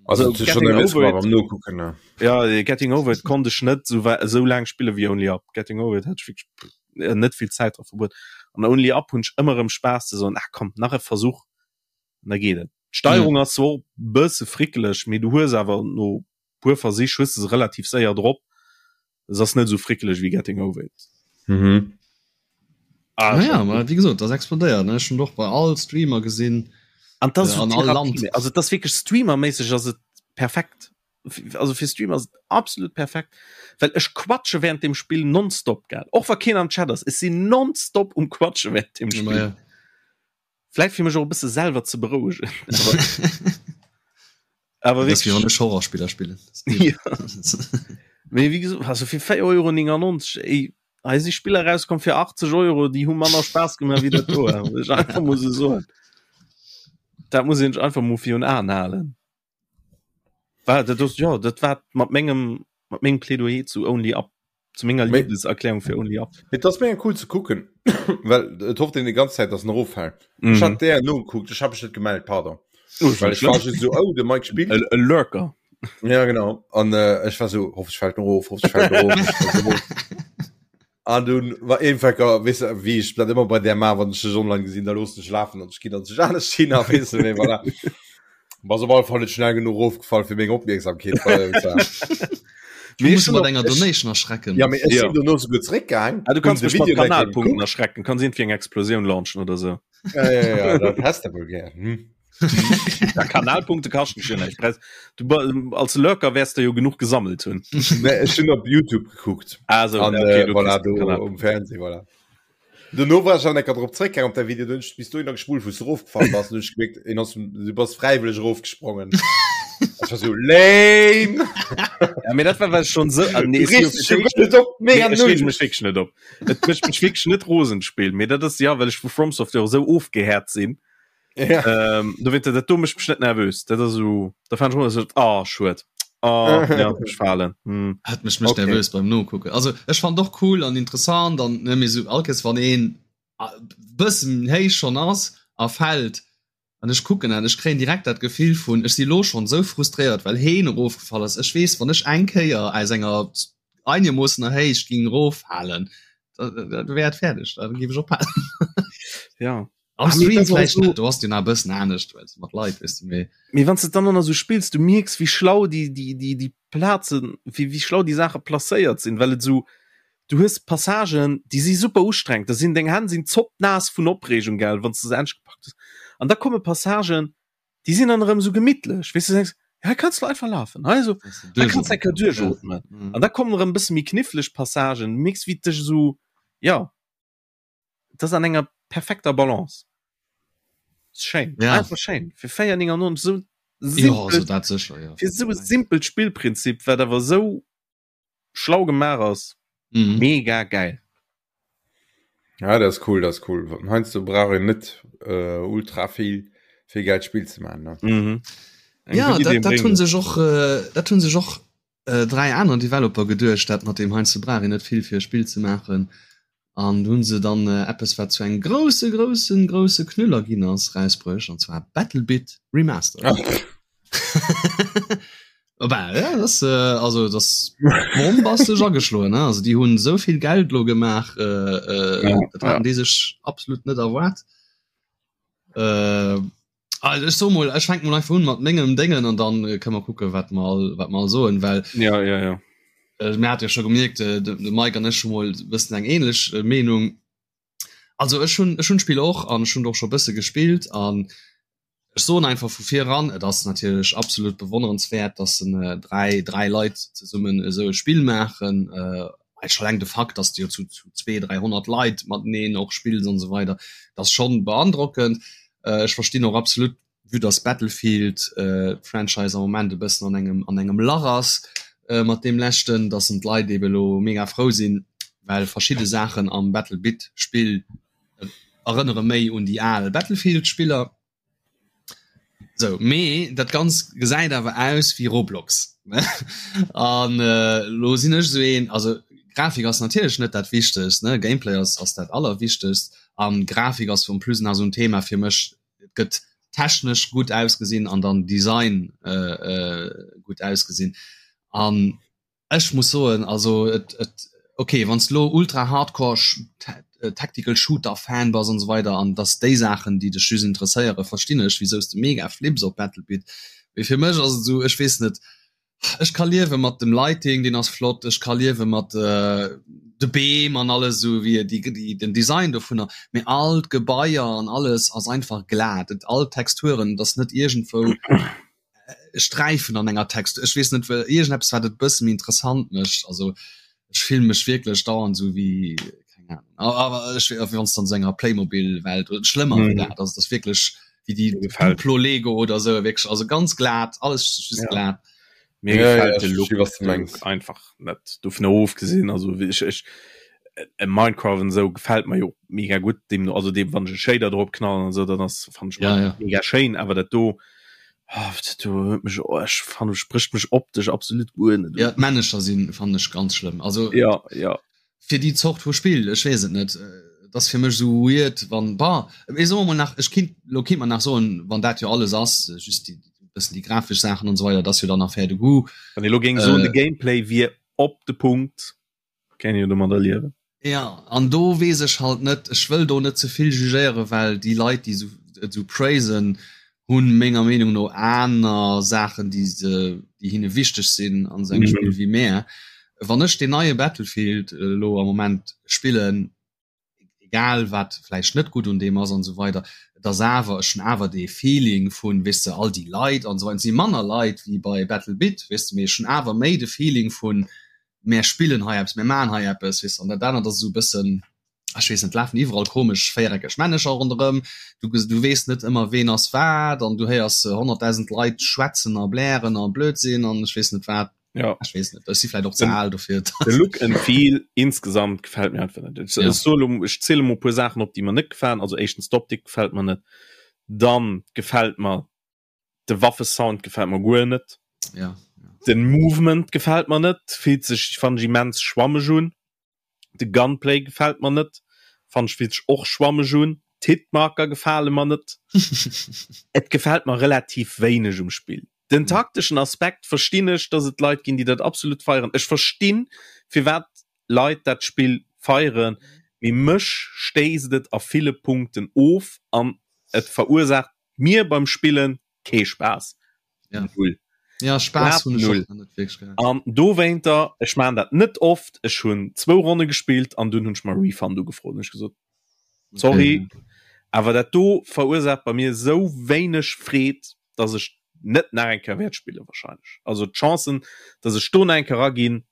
Speaker 3: Also,
Speaker 1: Also,
Speaker 3: dat huet schon
Speaker 1: Getting
Speaker 3: nervös
Speaker 1: Over
Speaker 3: gemaach
Speaker 1: It,
Speaker 3: beim Nokucken, ne?
Speaker 1: ja, Getting Over It konnt ech net esou, esou laang spille wéi Only Up. Getting Over It hat ech wierklech pff, net vill Zäit dra verbruet. An Only Up hunn ech ëmmer erëm Spaass ze soen, ah komm, nach e Versuch an da geet et. D'Steierung ass zwar och e bësse frickeleg, mee du hues awer no puer Versich hues de se relativ séier drop. Es ass net esou frickeleg wéi Getting Over It.
Speaker 3: Mhm.
Speaker 1: Ah,
Speaker 2: Naja,
Speaker 1: schon.
Speaker 2: ma wéi gesot, das explodéiert, ne? Ech hunn och bei all Streamer gesinn.
Speaker 1: An das
Speaker 2: Äh,
Speaker 1: ist so
Speaker 2: an all
Speaker 1: Therapie,
Speaker 2: Land.
Speaker 1: also das wirklich streamermäßig ass et perfekt. Also fir Streamer ass et absolut perfekt, well ech quatsche während dem Spill nonstop gell. Och wa keen am Chat ass, ech sinn nonstop um quatsche während dem
Speaker 2: Ma
Speaker 1: Spill.
Speaker 2: ja.
Speaker 1: Vläit fir mech och e bësse selwer ze berouegen. Awer, awer
Speaker 2: Das wéi wann
Speaker 1: wirklich,
Speaker 2: ech Horrorspiller spillen.
Speaker 1: ja. Mee wéi gesot, also fir 4,99 Euro, ey, hei si Spiller rauskomm fir 80 Euro, déi hu manner Spaass gemaach wéi dat do. Muss ech einfach mol esou soen. Dat muss een sech einfach mol virun Aen halen. War dat ass, jo, dat war mat mengem, mat mengem Plädoyer zu Only Up, zu menger Liebeserklärung fir Only Up.
Speaker 3: Et ass mega cool ze kucken, well et hofft een déi ganz Zäit, dass en eroffält. Mhm. Ech hat där nogekuckt, ech hab mech net gemellt, pardon. Oh, well ech war just so, oh, de Mike spillt.
Speaker 1: E Lurker.
Speaker 3: Ja, genau. An äh, ech war so, hoffentlich fällt en erof, hoffentlich fällt en erof. An dunn war eenfecker, weess de, wéi ech dat ëmmer bei där maan, wann ech dech online gesinn, da loossen ech lafen an ech ginn dann sech anescht hin a weess de, mee voilà. Bass op alle Fall net schnell genuch erofgefall fir meng Opmierksamkeet bei ze
Speaker 2: haben. Du muss mat enger Donation erschrecken.
Speaker 3: Ja, mee ech sinn dono souguer zeréckgaang.
Speaker 1: Ah, du kanns mech mat Kanalpunkten erschrecken, kanns iergendwéi eng Explosioun launchen oder sou.
Speaker 3: Ja, ja, ja, dat häss de wuel gär, hm.
Speaker 1: Ja, Kanalpunkte kaschten schon echt Preis. Du als Lurker wärst du jo genug gesammelt hunn.
Speaker 3: Nee, ech hunn op YouTube gekuckt.
Speaker 1: Ah, so,
Speaker 3: An,
Speaker 1: okay,
Speaker 3: äh,
Speaker 1: du
Speaker 3: voilà,
Speaker 1: kriegst den
Speaker 3: do
Speaker 1: Kanal.
Speaker 3: um Fernseh, voilà. Dono war ech an ecker drop zréckgaang op däi Video, dunn bis dohinner gespult, wou s du erofgefall bass, dunn hu ech gemierkt, een ass, du bass fräiwëlleg erofgesprongen. Ech war so, lame!
Speaker 1: Ja, mee dat war well ech schon sou, ah, nee,
Speaker 3: Du
Speaker 1: si
Speaker 3: reegst dech jo guer net op,
Speaker 1: Nee,
Speaker 3: mega
Speaker 1: ech reege
Speaker 3: null!
Speaker 1: mech wierklech net op. Et mécht mech wierklech net rosen, d'Spill, mee dat ass, ja, well ech vu From Software esou ofgehäert sinn.
Speaker 3: Ja.
Speaker 1: Ähm, do dat do mécht mech net nervös. Dat ass so, da fan ech so, ah, schued. Ah, ja, mech falen.
Speaker 2: Hm. Hat mech mech okay. nervös beim Nokucken. Also ech fand doch cool an interessant an ne, mir so allkes wann een bëssen héich schon ass a fällt an ech kucken an ech kréien direkt dat Gefill vun ech si lo schon sou frustréiert well heen erofgefall ass. Ech weess wann ech eng Kéier aus enger einermoossener Héicht ging eroffalen, da, da, da wär et fäerdeg, da géif ech ophalen.
Speaker 1: Ja.
Speaker 2: Am ah, Stream vielleicht so, du hast den a bëssen anescht well mat Leit wis du
Speaker 1: méi. Mee wann du dann noch so spillst, du mierks wéi schlau déi déi déi déi Plazen wéi wéi schlau déi Saache placéiert sinn, well et so du hues Passagen déi si super ustrengend, da sinn deng Hänn sinn zoppnaass vun Opreegung gell, wann s du se endlech gepackt hues. An da komme Passagen déi sinn dann erëm sou gemittlech, weess du, du denkst, ja hei kanns du einfach lafen, hei so hei kanns du eng Kéier duerchootmen. An da kommen erëm e bësse méi kniffleg Passagen, du mierks wéi et dech esou ja. Das an enger perfekter Balance. Schéin
Speaker 2: ja.
Speaker 1: einfach schéin fir 4,99 so
Speaker 2: simpel, ja, also dat sicher, ja.
Speaker 1: fir so simpelt Spillprinzip wat awer so schlau gemaach ass
Speaker 2: mhm.
Speaker 1: mega geil.
Speaker 3: Ja das ist cool das ist cool Heinz du brauch een net äh, ultra viel fir geld Spiel ze man
Speaker 1: ne? Mhm.
Speaker 2: Ja dat, dat hunn sech och äh, dat hunn sech och äh, dräi aner Developer geduecht, dat mat dem Heinz brauch een net vill fir e Spill ze maachen. An do hunn se dann eppes wat zu engem grousse groussen grousse Knüller ginn ass rausbruecht an zwar Battlebit Remastered. Bah, ja, das, äh, also das bombastesch ageschloen ne? Also déi hunn esou vill Geld lo gemaach äh, äh,
Speaker 1: Ja,
Speaker 2: dat haten déi sech absolut net erwaart. Äh, also ech so mol ech fänk mol einfach un mat mengem Déngen an dann äh, kënne mer kucke wat mer all wat mer all soen, well
Speaker 1: Ja, ja, ja.
Speaker 2: Äh, mir hat jo scho gemierkt äh, de, de Mike an ech hu mol bëssen eng ähnlech äh, Meenung. Also ech hunn ech hunn d'Spill och an ech hunn och scho bësse gespillt an ech soen einfach vu vir eran, et ass natierlech absolut bewonnerenswäert, dass en äh, dräi dräi Leit zesummen esou e Spill maachen. Äh, scho eleng de Fakt, dass du jo zu zu 200, 300 Leit mateneen och spills an esou weider, dat ass schonn beandrockend. Äh, ech verstinn och absolut vue dass Battlefield äh, Franchise am Moment e bëssen an engem an engem Lach ass äh, mat deem leschten, dass en d'Leit ebe lo mega frou sinn, well verschidde Saachen am Battlebit Spill äh, erënnere méi un déi al Battlefield Spiller. Sou, mee dat Ganzt gesäit awer aus wéi Roblox. An äh, lo sinn ech sou een, also Grafik ass natierlech net dat Wichtegst, ne? Gameplay ass ass dat Allerwichtegst an Grafik ass en plus nach sou en Thema fir mech, et gëtt technesch gutt ausgesinn an dann Design äh, äh, gutt ausgesinn. An ech muss soen also et, et okay wann s lo ultra hardcore äh, tactical shooter Fan bass an so weider an dass déi Saachen déi dech just interesséiere verstinn ech wisou s de mega flips op Battlebit. Mee fir mech ass et esou ech weess net Ech ka liewe mat dem Lighting, deen ass flott, ech ka liewe mat de Beem an alles esou wéi déi déi den Design dovunner, mee all d'Gebaier an alles ass einfach glat, et all d'Texturen, et ass net iergendwou Sträifen an enger Textur, ech weess net wéi iergendeppes wat et bësse méi interessant mécht, also ech fillen mech wierklech dauernd esou wéi keng Ahnung, awer ech wéi wann s de an esou enger Playmobil-Welt oder schlëmmer wéi dat, also et ass wierklech wéi déi Duplo Lego oder esou wierklech, also ganz glat, alles just
Speaker 1: Ja.
Speaker 2: glat.
Speaker 1: Mir ja, gefällt ja, de Look, was du meinst. einfach net dovun ofgesinn also ech, ech äh, Minecraft und so gefällt mir jo mega gut dem also dem wann ich Shader drop knallen und so dann das fand ich
Speaker 2: ja, ja.
Speaker 1: mega schön aber dat do oh, dat do mich oh, ich fand spricht mich optisch absolut
Speaker 2: gut net ja Manager sind fand ich ganz schlimm also
Speaker 1: ja ja
Speaker 2: fir déi Zort vu Spill, ech weess et net, et ass fir mech esou weird wann, bon, mee soe mer mol nach, ech kinnt, lo kinnt mer nach soen, wann dat jo alles ass, just déi bëssen déi grafesch Saachen an esou weider, dat ass jo dann Affaire de goût.
Speaker 1: Wann ee lo géing soen, de Gameplay wier op de Punkt, kéint een jo domadder liewen.
Speaker 2: Jo, an do weess ech halt net, ech wëll do net ze vill jugéieren, well déi Leit, déi esou et esou praisen, hunn menger Meenung no aner Saachen déi se déi hinne wichteg sinn an esou engem Spill wéi mär. Wann ech deen neie Battlefield elo am Moment spillen, egal wat vläicht net gutt un deem ass an esou weider, et ass awer, ech hunn awer dee Feeling vun, weess de, all déi Leit an esou weider, et si manner Leit wéi bei BattleBit, weess de, mee ech hunn awer méi de Feeling vun mär spillen hei eppes, mär maachen hei eppes, weess de, an dat anert ass esou e bëssen, ech weess net, lafen iwwerall komesch véiereckeg Männecher ronderëm, du du weess net ëmmer ween ass wat an du héiers 100.000 Leit schwätzen a blären a Blödsinn an ech weess net wat.
Speaker 1: Ja.
Speaker 2: Ech weess net, ech si vläit och ze al dofir.
Speaker 1: De Look and Feel insgesamt gefält mir einfach net. Ech, ja. soll, ech ziele mol e puer Saachen op, déi mer net gefalen. Also éischtens d'Optik gefält mer net. Dann gefält mer de Waffesound gefält mer guer net.
Speaker 2: Ja.
Speaker 1: Den Movement gefält mer net, fillt sech fand ech immens schwammeg un. De Gunplay gefält mer net, fannen ech fillt sech och schwammeg un. D'Hitmarker gefale mer net. Et gefält mer relativ wéineg um Spill. Den takteschen Aspekt verstinn ech, dass et Leit ginn, déi dat absolut feieren. Ech verstinn, firwat Leit dat Spill feieren, mee mech stéisst et a ville Punkten of an et verursaacht mir beim Spillen kee Spaass.
Speaker 2: Ja. Null. Ja, Spaass hunn ech och net wierklech
Speaker 1: gehat. An dowéinter, ech maachen dat net oft, ech hunn zwou Ronne gespillt an dunn hunn ech mer e Refund ugefrot. Hunn ech gesot, sorry, okay. awer dat do verursaacht bei mir esou wéineg Freed, dass ech net nach eng Kéier wäert spillen wahrscheinlech. Also d'Chancen, dass ech do nach eng Kéier eraginn,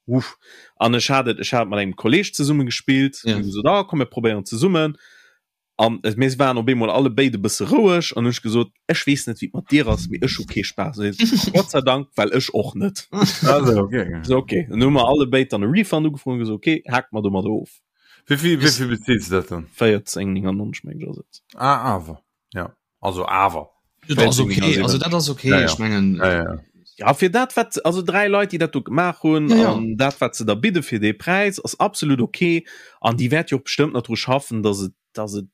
Speaker 1: uff. An ech hat et, ech hat mat engem Kolleg zesumme gespillt, ja. gesot, ah, komm mir probéieren zesummen. An mir waren op eemol alle béid e bësse roueg an hunn ech gesot, ech weess net wéi et mat dir ass, mee ech hu kee Spaass. An hie sot, Gott sei Dank, well ech och net.
Speaker 3: Also, okay.
Speaker 1: So, okay. Dann hu mer alle béid dann e Refund ugefrot an gesot, okay, hake mer domadder of.
Speaker 3: Wéi vill, wéi vill beziils de dat dann?
Speaker 1: 14,99 meng ech ass et.
Speaker 3: Ah, awer, ja. Also awer.
Speaker 2: Dat ass okay, also dat ass okay,
Speaker 3: ja, ja.
Speaker 2: ech mengen.
Speaker 3: Ja, ja.
Speaker 1: Ja, fir dat wat also dräi Leit, déi dat do gemaach hunn
Speaker 2: ja, ja.
Speaker 1: an dat wat se da bidde fir dee Präis ass absolut okay an déi wäert jo och bestëmmt nach dru schaffen, dass et dass et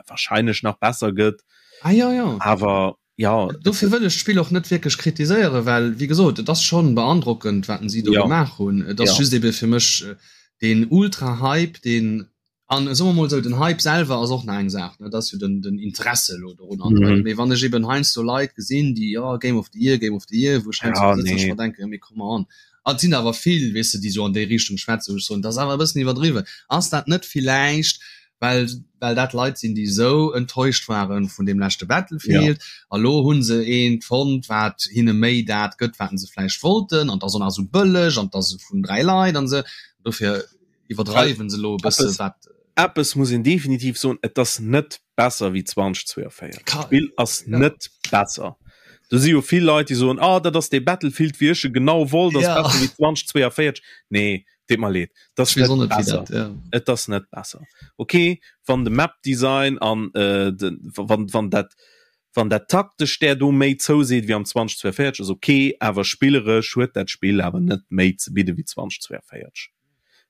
Speaker 1: wahrscheinlech nach besser gëtt.
Speaker 2: Ah, ja, ja.
Speaker 1: Awer ja.
Speaker 2: Dofir wëll ech d'Spill och net wierklech kritiséieren, well wéi gesot, et ass schonn beandrockend wat si do
Speaker 1: ja.
Speaker 2: gemaach hunn. Et ass
Speaker 1: ja.
Speaker 2: just ebe fir mech äh, deen Ultra-Hype, deen An soe mer mol esou, den Hype selwer ass och nach eng Saach, ne, dat ass jo den, den Interesse elo dorun an esou weider. Mee wann ech eben heiansdo Leit gesinn, déi, jo, Game of the Year, Game of the Year, wou ech heiansdo
Speaker 1: Ja,
Speaker 2: do sëtzen an ech
Speaker 1: nee.
Speaker 2: mer denken, jo, mee come on. An et sinn awer vill, weess de, déi esou an déi Richtung schwätzen, wou ech soen, dat ass awer e bëssen iwwerdriwwen. Ass dat net villäicht, well, well dat Leit sinn, déi esou enttäuscht ware vun deem leschte
Speaker 1: Ja.
Speaker 2: Battlefield, a lo hu se eent fonnt, wat hinne méi dat gëtt, wat se vläicht wollten, an et ass och nach esou bëlleg an et ass vun 3 Leit an esou. Dofir iwwerdreiwen se lo e bësse wat.
Speaker 1: Eppes muss een definitiv soen, et ass net besser wéi 2042. D'Spill ass net besser. Do si jo vill Leit, déi soen, ah dat ass dee Battlefield wéi ech e genau wollt, ass besser wéi 2042. Nee, deet mer leed, et ass net besser. Et ass net besser. Ok, wann de Map-Design an de wann wann dat wann dat taktesch där do méi zouseet wéi am 2042 ass ok, awer spilleresch huet dat Spill awer net méi ze bidde wéi 2042.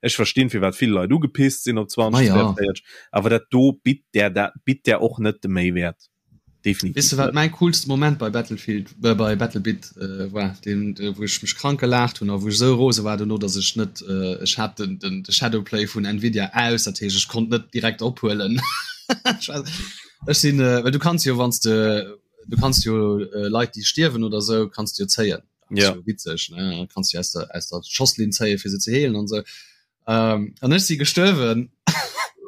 Speaker 1: Ech verstinn firwat vill Leit ugepisst sinn op 2042, awer dat do bitt där dat bitt där och net de Méiwäert. Definitiv
Speaker 2: Weess de wat
Speaker 1: net.
Speaker 2: mäi coolste Moment bei Battlefield äh, bei Battlebit äh, war, deen äh, wou ech mech krank gelaacht hunn a wou ech esou rose war dono, datt ech net äh, ech hat den, den, de Shadowplay vun Nvidia aus, dat heescht ech konnt net direkt ophuelen. Ech war, ech sinn äh, well du kanns jo wann s de du kanns jo äh, Leit déi stierwen oder sou kanns du jo zéien.
Speaker 1: Ja.
Speaker 2: So witzeg ne kannst du aus der aus der Schosslinn zéie fir se ze heelen an so ähm, an ech si gestuerwen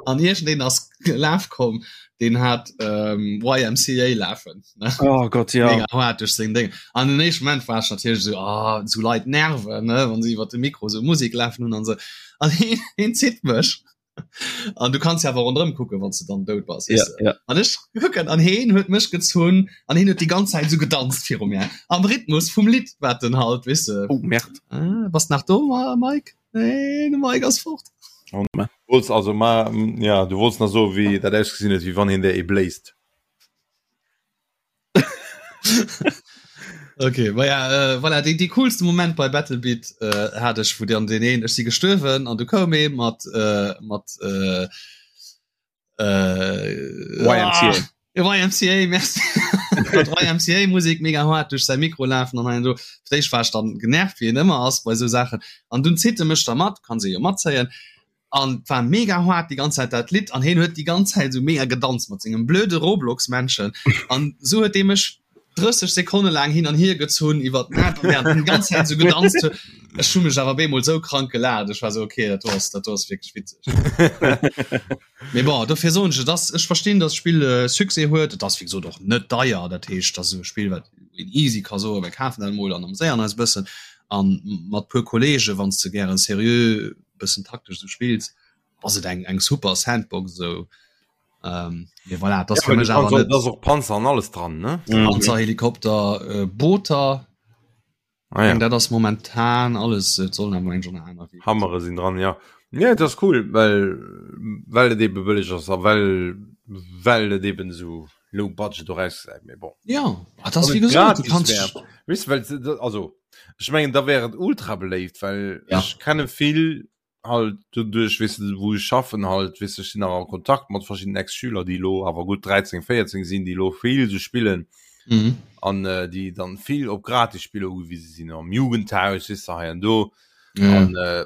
Speaker 2: an iergendeen ass gelaf komm den hat ähm, YMCA lafen ne?
Speaker 1: Oh Gott ja
Speaker 2: Mega hart duerch seng Ding an den éischten Moment war ech natierlech so ah, so Leit nerven ne wann se iwwer de Mikro so Musik lafen hunn an so an heen, heen zitt mech. An du kanns jo awer ronderëm kucken, wann s de dann dout bass,
Speaker 1: Ja,
Speaker 2: weess de.
Speaker 1: ja.
Speaker 2: An ech kucken an heen huet mech gezunn an heen huet déi ganz Zäit esou gedanzt viru mir am Rhythmus vum Lidd, wat en halt, weess de.
Speaker 1: Oh, Merde.
Speaker 2: Ah, bass nach do, Mike? Nee, de Mike ass fort.
Speaker 1: Oh, ma.
Speaker 3: Wollts also ma ja, du wollts nach soen, wéi dat ausgesinn huet, wéi wann hien der ee bléist.
Speaker 2: Okay, ma ja, äh, voilà, dee, dee coolste Moment bei Battlebeat äh, hat ech, wou dann deen een, ech si gestuerwen an du koum ee mat, äh, mat äh, äh,
Speaker 1: YMCA.
Speaker 2: Ah, YMCA, merci. Mat YMCA Musik mega hart duerch säi Mikro lafen an hei an do. Fir d'éischt war ech dann genervt, wéi een ëmmer ass bei esou Saachen. An dunn zitt e mech da mat, kann se jo matzéien. An et war mega hart déi ganz Zäit dat Lidd an hien huet déi ganz Zäit esou mega gedanzt mat sengem blöde Roblox-Männchen an esou huet dee mech 30 Sekonne laang hin an hier gezunn iwwer d'Map während en déi ganz Zäit esou gedanzt huet. Ech hu mech awer bemol esou krank gelaacht, ech war esou okay, dat do ass dat do ass wierklech witzeg. Mee bon, dofir soen ech, et ass, ech verstinn, datt d'Spill Succès huet. Et ass wéi gesot och net deier, dat heescht, et ass esou e Spill wat een easy ka soen, mir kafen dat emol an ameséieren eis e bëssen an mat puer Kollege wann s de gären seriö bëssen taktesch sou spills ass et eng eng super Sandbox sou ähm, mee voilà, das
Speaker 3: ja,
Speaker 2: mech awer net
Speaker 3: och Panzer an alles dran ne
Speaker 2: mhm. Panzer Helikopter äh, Booter ah, ja. dat ass momentan alles et sollen awer eng schon aner
Speaker 3: Hammere sinn dran ja ja das ist cool well well et eben bëlleg ass a well well et eben so low budget do rausgesäit mee bon
Speaker 2: ja ah, das wie gesagt, du kannst
Speaker 3: weißt, well, also Ech mengen da wär et ultra beléift, well
Speaker 2: ja.
Speaker 3: ech kenne vill halt doduerch weess de wou ech schaffen halt weess de ech sinn nach a Kontakt mat verschiddenen Ex-Schüler déi elo awer gutt 13, 14 sinn déi elo vill sou spillen
Speaker 2: mhm.
Speaker 3: an äh, déi dann vill op Gratisspiller ugewise sinn am Jugendhaus weess de hei an do
Speaker 2: ja.
Speaker 3: an äh,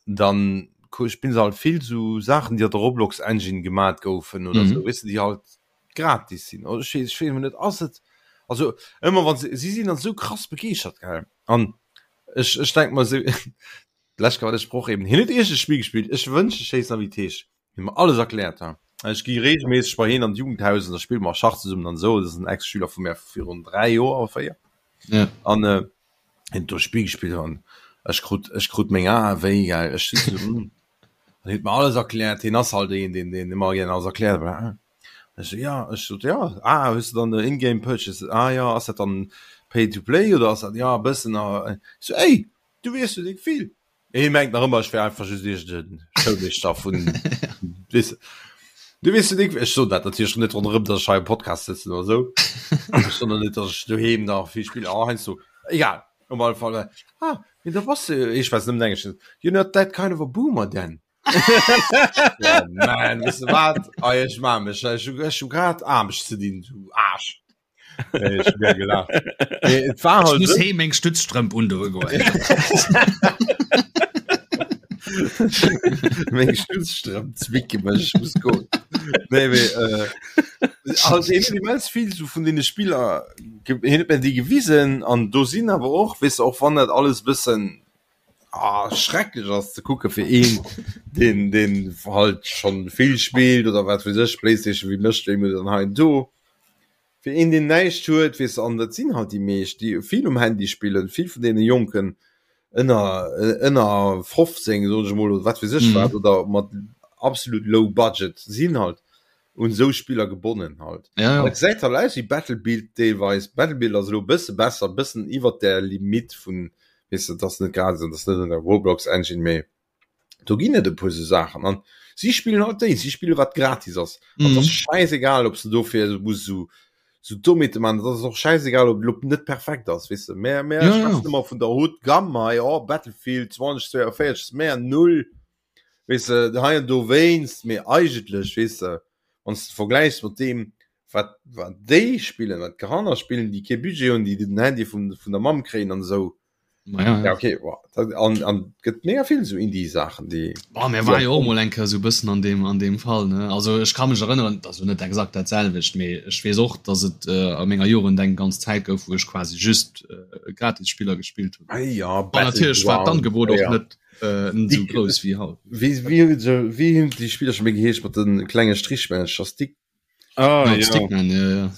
Speaker 3: dann spillen se halt vill sou Saachen déi an der Roblox Engine gemat goufen oder mhm. sou weess de déi halt gratis sinn oder ech weess ech weess net ass et also ëmmer wann se si sinn dann sou krass begeeschtert gell an ech ech denk mer sou d'lescht Kéier wat ech brauch eben hien huet iergend e Spill gespillt ech wënscht ech wéisst nach wéi et heescht hien mer alles erkläert ha ech gi regelméisseg bei hien an d'Jugendhaus an da spille mer Schach zesummen an esou dat ass en Ex-Schüler vu mär virun 3 Joer oder 4
Speaker 2: ja.
Speaker 3: an äh, hien huet do e Spill gespillt an ech krut ech krut meng Ae wéi gell ech si sou hm an hien huet mer alles erkläert hien ass halt een deen deen ëmmer gär alles erkläert bla ech so ja ech sot ja ah hues du dann de in-game purchase ah ja ass dat dann pay to play oder ass dat ja e bëssen a ech so ey du weess jo déck vill hie mengt nach ëmmer ech wär einfach just iergend e Schoulmeeschter vun weess du weess jo déck ech soen dat natierlech net ronderëm datt ech hei am Podcast sëtzen oder sou ech soen och net datt ech doheem nach vill spillen ah heiansdo egal op alle Fall ah mee da bass de ech schwätzen nëmmen Englesch you're not that kind of a boomer then oh man weess de wat ah ech maa mech ech hu ech hu grad Aarbecht ze dinn du Aarsch Nee, ech hu gär gelaacht mee et war
Speaker 2: Ech
Speaker 3: halt
Speaker 2: muss
Speaker 3: sou
Speaker 2: heem meng Stützstrëmp undoe goen.
Speaker 3: Meng Stützstrëmp zwicke mech, ech muss goen. Nee, mee äh, also hien huet immens vill sou vun deene Spiller ge hien huet mir déi gewisen an do sinn awer och, weess de, och wann dat alles e bëssen ah, schrecklech ass ze kucke fir een, deen deen halt schonn vill spillt oder wat weess ech, Playstation, wéi mécht wéi muss an hei an do. Fir een deen näischt huet, weess de, an dat sinn halt déi meescht, déi vill um Handy spillen, vill vun deene Jonken ënner ënner 15 soen ech emol oder wat weess ech wat oder mat absolut low budget sinn halt un esou Spiller gebonnen halt.
Speaker 2: Ja, ja.
Speaker 3: Dat gesäit halt aus wéi Battlebild deelweis. Battlebild ass elo e bësse besser, e bëssen iwwert der Limite vun, weess de, dat ass net gratis an dat ass net an der Roblox Engine, mee do ginn et e puer sou Saachen an si spillen halt déi, si spillen wat gratis ass. An et ass schäisegal, ob s de dofir muss esou sou Dommheete man, dat ass och schäisegal, ob et elo net perfekt ass, weess de. Mär mär
Speaker 2: Ja, ja.
Speaker 3: schwätzen ëmmer vun der Haute Gamme hei, oh Battlefield 2042 ass mär null, weess de, hei an dowéinst, mee eigentlech, weess de, wann s de vergläichs mat deem wat wat déi spillen, wat d'Kanner spillen, déi kee Budget hunn, déi den Handy vum vun der Mamm kréien an esou,
Speaker 2: Ma ja,
Speaker 3: Ja,
Speaker 2: ja.
Speaker 3: okay, wow. Dat, an, an gëtt mega vill so Indie-Saachen, déi.
Speaker 2: Boah, mir war jo och mol eng Kéier sou bëssen an deem, an deem Fall, ne? Also ech ka mech erënneren, et ass jo net exakt dat selwecht, mee ech weess och, dass et äh, a menger Jugend eng ganz Zäit gouf, wou ech quasi just äh, Gratis-Spiller gespillt hunn.
Speaker 3: Ah, ja,
Speaker 2: An natierlech war
Speaker 3: Battleground.
Speaker 2: d'Angebot och
Speaker 3: Ja.
Speaker 2: net äh, net sou
Speaker 3: Dick-
Speaker 2: grouss wéi haut.
Speaker 3: Wéi, wéi, wéi, wéi hunn déi Spiller scho méi geheescht mat de klenge Strichmännercher? Stick
Speaker 1: Ah,
Speaker 2: Ja,
Speaker 1: ja.
Speaker 2: Stickman, ja, ja.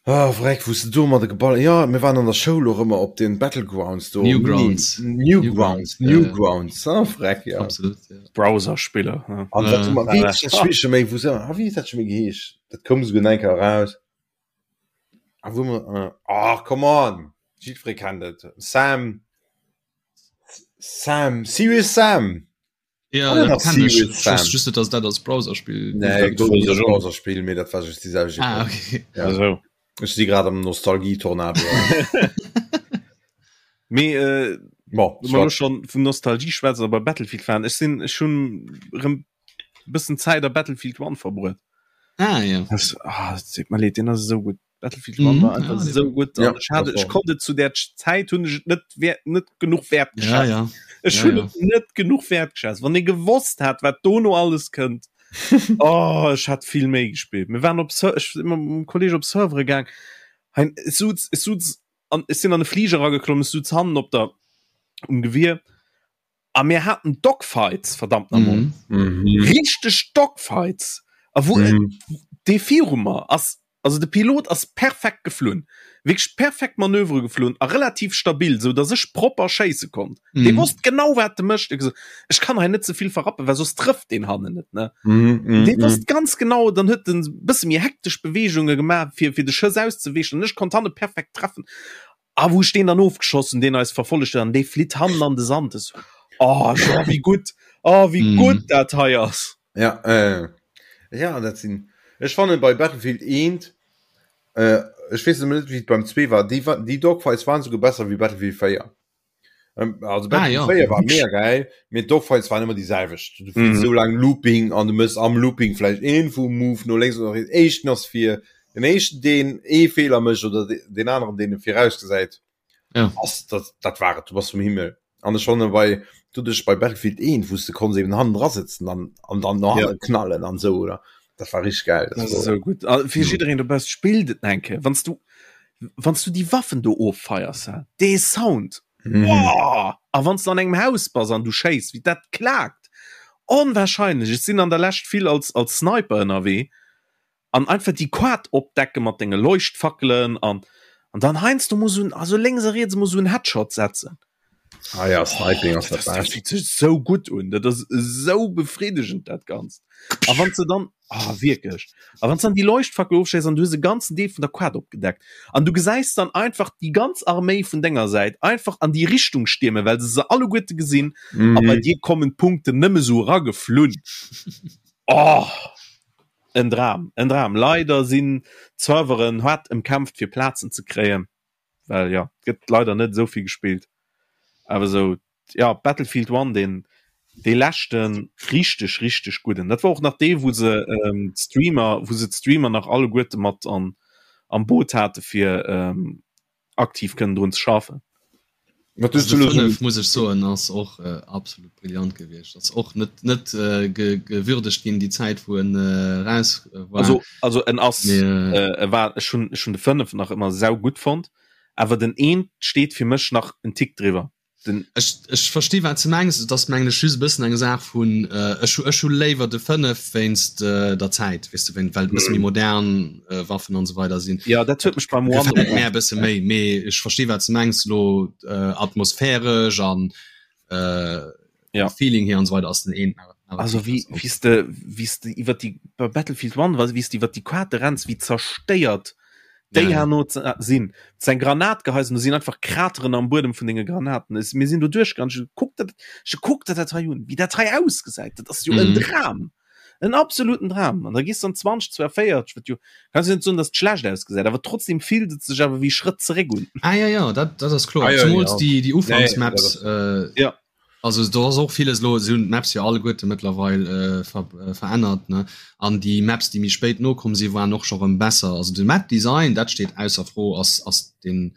Speaker 3: Ah, vreck, wou s de domadder geball. Jo, mir waren an der Schoul och ëmmer op den Battlegrounds do.
Speaker 2: Newgrounds.
Speaker 3: Newgrounds, Newgrounds, ah, vreck, ja.
Speaker 2: Absolut, ja.
Speaker 1: Browserspiller, ja.
Speaker 3: An wat hu mer, wéi heescht dat Spill scho méi, wou se, ah, wéi huet dat scho méi geheescht? Dat koum esouguer nach eng Kéier eraus. Ah, wou mer, ah, come on! Jiddweree kennt et. Sam, Sam, Serious Sam!
Speaker 2: Ja, ah, dat kenn ech. Ech wosst just net, dass dat als Browserspill
Speaker 3: Nee, gouf net als Browserspill, mee dat war just déi selwecht
Speaker 2: Ah, okay.
Speaker 3: Ja. Also. Ech si grad am Nostalgie-Tornado.
Speaker 1: Mee äh,
Speaker 3: Bon,
Speaker 1: wenn wir schon vun Nostalgie schwätzen, aber Battlefield fahren. Ech sinn ech hunn rëm bëssen Zäit a Battlefield 1 verbruet.
Speaker 2: Ah, ja.
Speaker 1: Das, ah, das tut mir leid, den ass esou gutt. Battlefield 1 war einfach
Speaker 2: ja,
Speaker 1: so gut
Speaker 3: ja,
Speaker 1: ich hatte, ich konnte zu der Zeit hun ich net wert net genug wert
Speaker 2: ja, ja.
Speaker 1: ich
Speaker 2: ja,
Speaker 1: hun
Speaker 2: ja.
Speaker 1: net genug wert geschätzt wann ihr gewusst hat wat dono alles könnt oh ich hat viel méi gespielt mir waren op ich immer mit dem Kollege op Servere gang hein es suz es suz an es sind an de Flieger geklommen es suz hannen op der um Gewehr A mir haten Dogfights, verdammt nochmol.
Speaker 2: Mhm.
Speaker 3: Mhm.
Speaker 1: Richteg Dogfights. A wou
Speaker 3: Mhm.
Speaker 1: dee viru mer ass, also de Pilot ass perfekt geflunn. Wierklech perfekt Manövere geflunn a relativ stabil, sou datt ech propper schéisse konnt.
Speaker 2: Mhm.
Speaker 1: Dee wosst genau, wat e mécht. Huet gesot, ech kann hei net ze vill verrappen, well soss trëfft deen hannen net, ne?
Speaker 3: Mhm. Mhm.
Speaker 1: Dee wosst ganz genau, dann huet en bësse méi hektesch Beweegunge gemaach, fir, fir de Schëss auszeweechen an ech konnt hanne perfekt treffen. A wou ech deen dann ofgeschoss hunn, deen eis verfollegt huet, an dee flitt hannen an de Sand. Ech sou, Oh, jo, wéi gutt, oh, wéi
Speaker 2: Mhm.
Speaker 1: gutt dat hei ass.
Speaker 3: Ja, äh, ja, dat sinn. Ech fannen bei Battlefield 1, äh, ech weess ëmmer net, wéi et beim 2 war, déi, déi Dogfights waren souguer besser wéi Battlefield 4. Ähm, also
Speaker 2: Ah,
Speaker 3: Battlefield
Speaker 2: ja.
Speaker 3: 4 war mega geil, mee d'Dogfights waren ëmmer déi selwecht. Du fliss
Speaker 1: Mhm.
Speaker 3: sou laang Looping an du mëss am Looping vläicht een vum Move no lénks oder riets. Éischten ass fir den éischten, deen ee Feeler mécht oder de, den aneren, deen e virausgesäit.
Speaker 2: Ja.
Speaker 3: Ass, dat, dat war et, du bass vum Himmel. An ech fanne bei, doduerch bei Battlefield 1, wou s de konns eben hannen dra sëtzen an, an dann no
Speaker 1: Ja.
Speaker 3: hanne knallen an sou, oder? Dat war richteg geil.
Speaker 1: Dat ass esou gutt. A fir jiddereen dobausse, spillt et eng Kéier. Wann s du, wann s du déi Waffen do offeiers, hä, dee Sound,
Speaker 3: Mhm.
Speaker 1: Boah! A wann s du an engem Haus bass an du schéiss, wéi dat klaakt! Onwahrscheinlech! Ech sinn an der Lescht vill als, als Sniper ënnerwee an einfach déi Quad opdecke mat denge Leuchtfackelen an, an dann heiansdo mol sou en, also lénks a riets mol sou en Headshot setzen.
Speaker 3: Ah ja, Sniping ass
Speaker 1: Dat
Speaker 3: dat
Speaker 1: ass, dat
Speaker 3: Bescht.
Speaker 1: fillt sech sou gutt un, dat ass esou befriddegend dat Ganzt. A wann s de dann, ah wierklech, a wann s dann déi Leuchtfackel ofschéiss an du hues e ganzen Deel vun der Quad opgedeckt an du gesäis dann einfach déi ganz Arméi vun denger Säit einfach an déi Richtung stiermen, well se se alleguerte gesinn a bei
Speaker 3: Mhm.
Speaker 1: dir kommen d'Punkten nëmme sou erageflunn. Oh, en Dram, en Dram. Leider sinn d'Serveren haart ëmkämpft fir Plazen ze kréien. well ja gëtt leider net esou vill gespillt awer esou ja Battlefield 1 den dee leschten richteg richteg gudden dat war och nach dee wou se ähm, d'Streamer wou se d'Streamer nach alleguerte mat an am Boot hate fir ähm, aktiv kënnen drun ze schaffen.
Speaker 3: Wat
Speaker 2: Also
Speaker 3: hues
Speaker 2: de
Speaker 3: du elo
Speaker 2: 5 muss ech soen ass och äh, absolut brillant gewiescht. Ass och net net äh, ge, gewürdegt ginn déi Zäit wou en äh, raus äh, war.
Speaker 1: Also also en ass
Speaker 2: Mee, äh,
Speaker 1: äh, e war ech hunn ech hunn de 5 nach ëmmer sau gutt fonnt, awer den eent steet fir mech nach en Tick driwwer. Den
Speaker 2: Ech, ech versti wat ze mengs, et ass mengen ech just e bëssen eng Saach vun äh, ech hu ech hu léiwer de 5 wéinst äh, der Zäit, weess de, wéin well et e bësse méi modern äh, Waffen an esou weider sinn.
Speaker 1: Ja dat huet mech beim One
Speaker 2: Gefält mär e bësse méi, mee ech versti wat ze mengs lo äh, atmosphäresch an äh,
Speaker 1: Ja.
Speaker 2: Feeling hier an esou weider ass den een awer awer
Speaker 1: Also
Speaker 2: vill
Speaker 1: wéi
Speaker 2: besser.
Speaker 1: wéi s de wéi s de iwwer déi bei Battlefield 1 war wéi s de iwwer déi Quarte renns, wéi zerstéiert déi
Speaker 2: Ja, ja.
Speaker 1: herno ze sinn. Ze eng Granat geheis an do sinn einfach Krateren am Buedem vun denge Granaten. Es mir sinn do duerchgaangen, ech kuck dat ech kuck der dat hei un, wéi dat hei ausgesäit, dat ass jo en
Speaker 2: Mhm.
Speaker 1: Dram, en absoluten Dram. An da gees de an 2042, wat jo kanns jo net soen, datt et schlecht ausgesäit, awer trotzdem fillt et sech awer wéi Schrëtt zeréck un.
Speaker 2: Ah ja ja, dat dat ass kloer.
Speaker 3: Ah, ja,
Speaker 2: Zumools
Speaker 3: ja.
Speaker 2: déi déi
Speaker 3: Nee,
Speaker 2: Ufanksmaps
Speaker 3: dat
Speaker 2: äh,
Speaker 1: Ja.
Speaker 2: Also do ass och villes elo, se hunn d'Maps jo alleguerte mëttlerweil verännert, ne? An déi Maps, déi méi spéit nokomm sinn, waren och scho rëm besser. Also de Map-Design, dat steet ausser Fro, ass ass den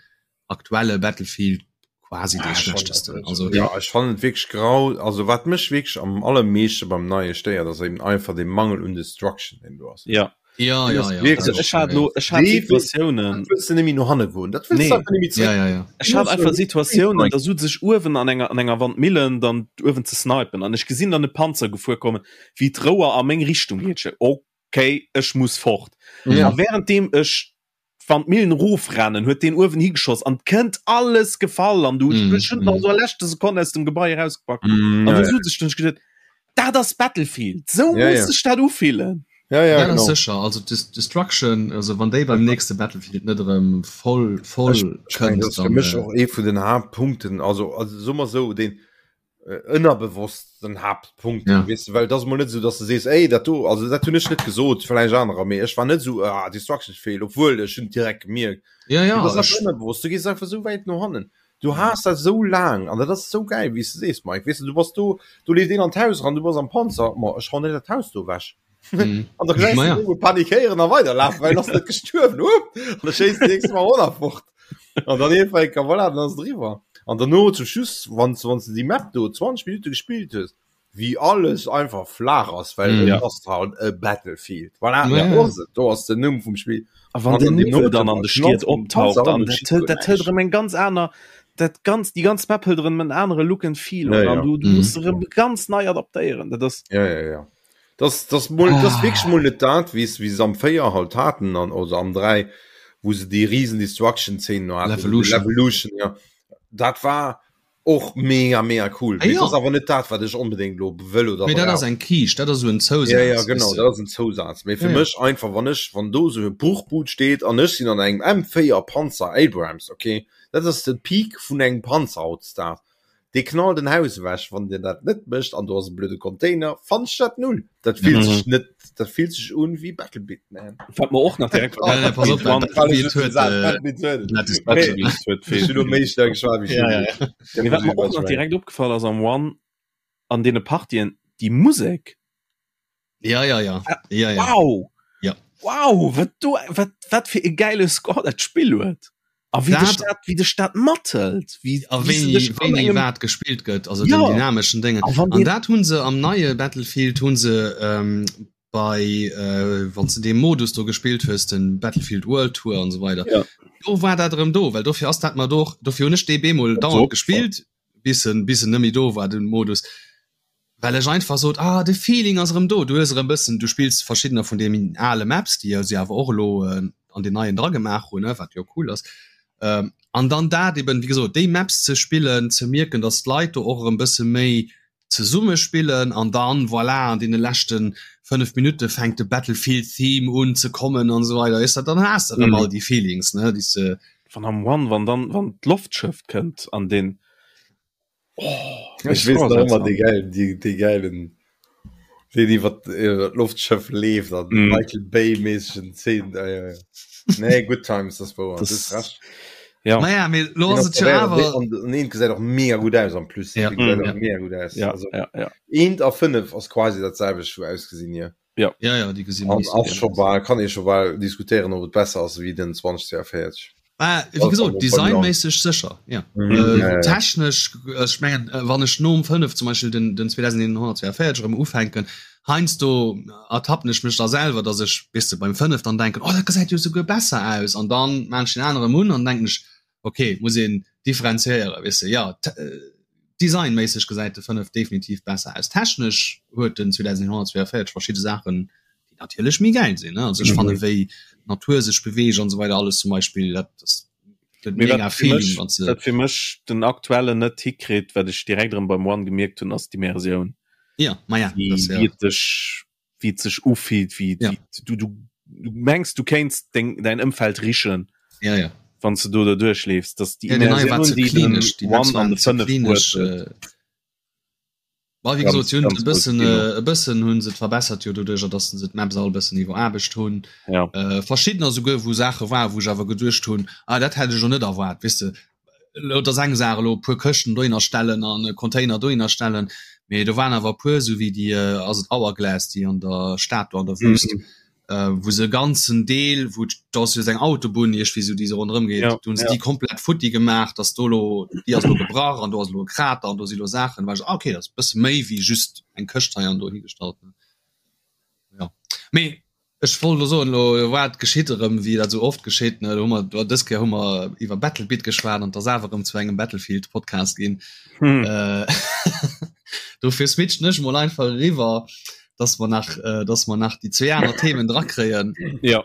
Speaker 2: aktuelle Battlefield quasi dee schlechtesten. Also
Speaker 3: Ja, ech fannen et wierklech grau. Also wat mech wierklech am allermeeschte beim neie stéiert, ass eben einfach dee Mangel un Destruction, deen do ass.
Speaker 1: Ja.
Speaker 2: Ja, ja, ja,
Speaker 3: Wirklich,
Speaker 1: Also ech hat lo ech hat Situatiounen
Speaker 3: wëlls du nemmi no hanne goen dat wëlls
Speaker 1: Nee.
Speaker 3: du einfach nemmi zréck.
Speaker 2: Ja, ja, ja.
Speaker 1: Ech hat einfach Situatiounen da sot sech uewen an enger an enger Wandmillen dann uewen ze snipen an ech gesinn dann e Panzer gefuer kommen wéi d'Rouer a meng Richtung geet. Ech okay ech muss fort.
Speaker 3: Ja.
Speaker 1: A währenddem ech Wann d'Millen erofrennen, huet deen uewen higeschoss an 't kënnt alles gefall an du mm, hues mm. nach so a leschte Sekonn aus dem Gebai erausgepackt. Mm, an ja, du ja. sech dann gedacht, dat ass Battlefield, sou ja, muss ja. sech dat ufillen.
Speaker 3: Ja, ja,
Speaker 2: ja, genau. sécher also Destruction also wann déi beim nächste Battlefield net erëm voll voll
Speaker 3: kënnt, dann, fir mech äh, och ee vun den Haaptpunkten also also so mal so den äh, ënnerbewosst den Haaptpunkt ja. weißt du, well das mal net so dass du sees ey dat do also dat hunn ech net gesot vielleicht anerer mee ech war net so ah, Destruction fehl obwohl ech hunn direkt gemierkt
Speaker 2: ja, ja,
Speaker 3: das ass ënnerbewusst du gehst einfach so wäit no hannen du has dat so lang an dat ass so geil wéi s du sees Mike weißt du du bass do du leeft een an d'Haus ran du bass am Panzer ma ech hauen net dat Haus do wech
Speaker 2: Mhm.
Speaker 3: An der gesäis
Speaker 2: ja.
Speaker 3: du panikéieren a weiderlafen, well ass net gestuerwen. Up! An da schéisst de nächste Mal och nach fort. An dann iergendwann enker, voilà, dann ass et eriwwer. An derno zum Schluss, wann s wann s de déi Map do 20 Minutte gespillt hues, wéi alles einfach flaach ass, well
Speaker 2: Mhm.
Speaker 3: et
Speaker 1: Ja.
Speaker 3: ass halt e Battlefield. Voilà,
Speaker 2: Ja,
Speaker 3: dat
Speaker 2: ja.
Speaker 3: ass et, do ass den Numm vum Spill.
Speaker 1: A wann
Speaker 3: An
Speaker 1: den
Speaker 3: dann
Speaker 1: Niwwel
Speaker 3: deemno
Speaker 1: dann an de Stied
Speaker 3: knallt den
Speaker 1: optaucht,
Speaker 3: Panzer an
Speaker 1: an
Speaker 3: und
Speaker 1: dat
Speaker 3: schießt
Speaker 1: hëlt
Speaker 3: guer
Speaker 1: dat hëlt
Speaker 3: näischt.
Speaker 1: erëm eng ganz aner, dat ganz déi ganz Map hëlt erëm en anere Look and Feel
Speaker 3: Ja,
Speaker 1: un an
Speaker 3: ja.
Speaker 1: du du
Speaker 2: Mhm.
Speaker 1: muss erëm ganz nei adaptéieren. Dat ass
Speaker 3: Ja, ja, ja. Das, das, mol, das
Speaker 2: Ah.
Speaker 3: wierklech mol net dat, wéi wéi se am 4 halt haten an oder am 3, wou se déi riesen Destruction-Szenen no haten.
Speaker 2: Levolution.
Speaker 3: Levolution, ja. Dat war och mega mega cool.
Speaker 2: Ah,
Speaker 3: Mee
Speaker 2: ja.
Speaker 3: das ass awer net dat, wat ech onbedéngt lo wëll oder
Speaker 2: Mee dat ass
Speaker 3: brauch.
Speaker 2: eng Kiischt, dat ass esou en Zousaz.
Speaker 3: Ja, ja, genau,
Speaker 2: weess de.
Speaker 3: dat ass en Zousaz. Mee fir
Speaker 2: Ja, ja.
Speaker 3: mech einfach, wann ech, wann do sou e Bruchbud steet an ech sinn an engem M4 Panzer Abrams, okay, dat ass de Peak vun engem Panzer hautdesdaags. Dee knallt en Haus ewech, wann dir dat net mécht an do ass e blöde Container, fannen ech dat null. Dat fillt sech net, dat fillt sech un wéi Battlebit, man.
Speaker 1: Wat mer och nach direkt
Speaker 2: Ja, ja, pass op, Battlebit huet, äh,
Speaker 1: Battlebit huet
Speaker 3: Ech hunn elo méi staark geschwat wéi
Speaker 2: Ja, ja, ja.
Speaker 1: Mee wat mer och nach direkt opgefall ass am One an deene Partien, déi Musek,
Speaker 2: Ja, ja, ja. Ja, ja.
Speaker 1: Wow!
Speaker 2: Ja.
Speaker 1: Wow, wat do, wat, wat fir e geile Score dat Spill huet. A wéi dech dat, wéi dech dat mathëlt, wéi,
Speaker 2: A
Speaker 1: wéi se
Speaker 2: wéini,
Speaker 1: dech an
Speaker 2: wéini
Speaker 1: engem,
Speaker 2: wat gespillt gëtt, also
Speaker 1: Ja.
Speaker 2: den dynameschen Déngen.
Speaker 1: A wann
Speaker 2: An
Speaker 1: deen,
Speaker 2: dat hunn se am neie Battlefield hunn se ähm, bei äh, wann s de dee Modus do gespillt hues, den Battlefield World Tour an esou weider,
Speaker 1: Ja.
Speaker 2: do war dat erëm do, well dofir ass dat mer do och, dofir hunn ech dee bemol
Speaker 1: Dat
Speaker 2: dauernd
Speaker 1: opgefall.
Speaker 2: gespillt, bis en, bis en net méi do war, den Modus. Well ech einfach sot, ah de Feeling ass erëm do, du hues erëm bëssen, du spills verschiddener vun deenen ale Maps, déi se awer och elo an den neien dragemaach hunn, wat jo cool ass. An dann dat eben, wéi gesot, déi Maps ze spillen, ze mierken, datt d'Leit do och erëm bësse méi zesumme spillen an dann, voilà, an deene leschte 5 Minutte fänkt de Battlefield Theme un ze kommen an esou weider, weess de, dann has de erëm all déi Feelings, ne, déi s de.
Speaker 1: Wann am One, wann dann, wann d'Loftschëff kënnt an deen,
Speaker 3: Oh, ich wees nach immer die geilen, die, die geilen den iwwer d'Loftschëff leeft an mm. Michael Bay mäßigen Szenen. Ja, ja, ja. Nee, good times das war
Speaker 1: das,
Speaker 3: das recht.
Speaker 1: Ja.
Speaker 2: Naja, mir lo ass et jo awer
Speaker 3: an een gesäit och mega gut aus am plus
Speaker 2: ja.
Speaker 3: mm,
Speaker 1: ja.
Speaker 3: mega gut aus
Speaker 1: ja,
Speaker 3: also,
Speaker 1: ja, ja.
Speaker 3: eent a 5 ass quasi dat selwecht wou ausgesinn hier
Speaker 1: Ja.
Speaker 2: Ja, ja, déi gesinn
Speaker 3: An
Speaker 2: nicht so
Speaker 3: ass
Speaker 2: geil
Speaker 3: scho
Speaker 2: aus.
Speaker 3: bal, kann ee scho bal diskutéieren, ob et besser ass wéi den 2042.
Speaker 2: Ah, wéi gesot, designméisseg sécher, ja.
Speaker 3: Mhm.
Speaker 2: Äh,
Speaker 3: Ja, ja, ja.
Speaker 2: technesch, ech mengen, äh, wann ech nom 5 zum Beispiel den, den 2142 erëm ufänken, heiansdo ertappen ech mech da selwer, dass ech, weess de, beim 5 dann denken, oh, dat gesäit jo souguer besser aus, an dann maan ech den anere erëm un an denken ech, okay, muss een differenziéieren, weess de, ja, designméisseg gesäit de 5 definitiv besser aus. Technesch huet den 2142 verschidde Saachen, déi natierlech méi gäil sinn, ne, also ech fanne wéi d'Natur sech beweegt an esou weider alles zum Beispill, dat ass gëtt
Speaker 1: Mee
Speaker 2: mega
Speaker 1: wat fir
Speaker 2: Feeling
Speaker 1: mech,
Speaker 2: wann s de.
Speaker 1: wat fir mech den aktuellen net hikritt, wat ech direkt erëm beim One gemierkt hunn, ass d'Immersioun.
Speaker 2: Ja, ma ja,
Speaker 1: Wéi,
Speaker 2: dat ass
Speaker 1: wéi
Speaker 2: ja.
Speaker 1: et dech wéi et sech ufillt, wéi
Speaker 2: Ja.
Speaker 1: wéi du du du mengs du kéints deng däin Ëmfeld richen,
Speaker 2: Ja, ja.
Speaker 1: wann s de do derduerch leefs, dass déi
Speaker 2: Ja, den neie war
Speaker 1: Immersioun,
Speaker 2: ze
Speaker 1: déi den
Speaker 2: klinesch, déi Maps
Speaker 1: One an
Speaker 2: waren
Speaker 1: de
Speaker 2: ze
Speaker 1: 5 huet,
Speaker 2: klinesch.
Speaker 1: huet.
Speaker 2: Äh, Bah, wéi
Speaker 1: Ganz,
Speaker 2: gesot, si hunn et
Speaker 1: ganz
Speaker 2: e
Speaker 1: grousst
Speaker 2: bëssen,
Speaker 1: Kino.
Speaker 2: äh, e bëssen hunn se et verbessert jo doduercher, datt se d'Maps all e bëssen iwweraarbecht hunn.
Speaker 1: Ja.
Speaker 2: Äh, verschiddener souguer, wou Saache war, wou ech awer geduecht hunn, ah, dat hätt ech elo net erwaart, weess de. Elo, et ass eng Saach elo e puer Këschten dohinner stellen an e Container dohinner stellen, mee do waren awer e puer, esou wéi déi, ass et Hourglass, déi an der Stad do an der Wüst, wou se e ganzen Deel, wou do ass jo esou eng Autobunn iergendwéi esou, déi esou ronderëm geet, do hunn se déi komplett futti gemaach, dass do elo, déi ass elo gebrach an do ass elo e Krater an do si elo Saachen, war ech esou, ah okay, dat ass e bësse méi wéi just eng Këscht hei an do higestallt. Jo, mee Ech wollt elo soen, elo wat geschitt erëm, wéi dat esou oft geschitt, ne, elo hu mer, do dës Kéier hu mer iwwer Battlebit geschwat an et ass awer erëm zu engem Battlefield-Podcast ginn.
Speaker 1: Hm.
Speaker 2: Äh, dofir switchen ech mol einfach eriwwer, dass mer nach, äh, dass mer nach déi zwee aner Themen drakréien.
Speaker 1: Ja.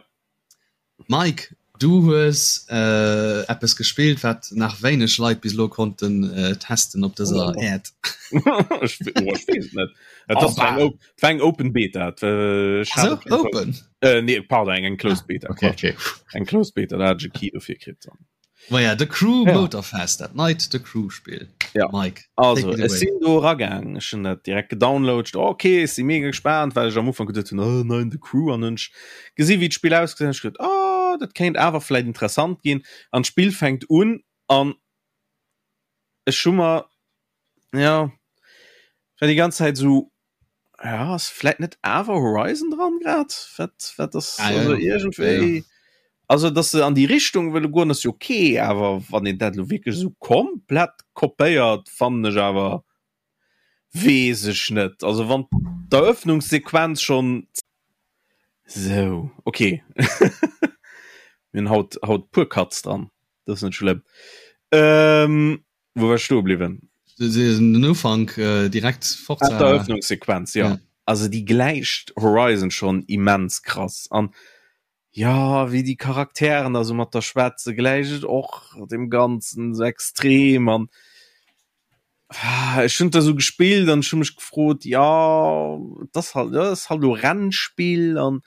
Speaker 2: Mike. Du hues äh, eppes gespillt, wat nach wéineg Leit bis elo konnten äh, testen op dëser oh. Äerd.
Speaker 1: Ech oh, ech weess et net. Et ass eng oh, war eng Open Beta. Äh, ech
Speaker 2: hat so, Open?
Speaker 1: Äh, nee, pardon, eng, eng Closed ah, Beta.
Speaker 2: Okay, okay.
Speaker 1: Eng Closed Beta, da hat ech e Key dofir kritt.
Speaker 2: Ma ja, The Crew ja. Motorfest, dat neit The Crew Spiel.
Speaker 1: Ja.
Speaker 2: Mike.
Speaker 1: Also, ech sinn do ragaang, ech hunn dat direkt gedownloadet. Okay, ech si mega gespaant, well ech am Ufank geduet hunn, oh nein, The Crew an hunn ech gesi wéi d'Spill ausgesinn huet, ech geduet, oh, dat kéint awer vläit interessant ginn. An d'Spill fänkt un an ech hu mer, ja, war déi ganz Zäit esou, ja, ass vläit net awer Horizon dran grad? Wat, wat ass,
Speaker 2: Ah, ja,
Speaker 1: also
Speaker 2: ja. Ja,
Speaker 1: iergendwéi,
Speaker 2: ja.
Speaker 1: also dass se an déi Richtung wëlle goen, ass jo okay, awer wann een dat elo wierklech esou komplett kopéiert, fannen ech awer, weess ech net. Also wann d'Eröffnungssequenz schonn. Sou, okay. Mir hunn haut, haut puer Cuts dran, dat ass net schlëmm. Ähm, Wou war ech stoe bliwwen?
Speaker 2: Den Ufank äh, direkt
Speaker 1: Forza. Ah, d'Eröffnungssequenz, ja. ja. Also déi gläicht Horizon schon immens krass an ja, wéi déi Charakteren da sou mat der schwätze gläicht et och dem Ganzen sou extrem an ah, ech hunn da sou gespillt an ech hu mech gefrot, ja, dat ass halt, dat ass halt lo Rennspill an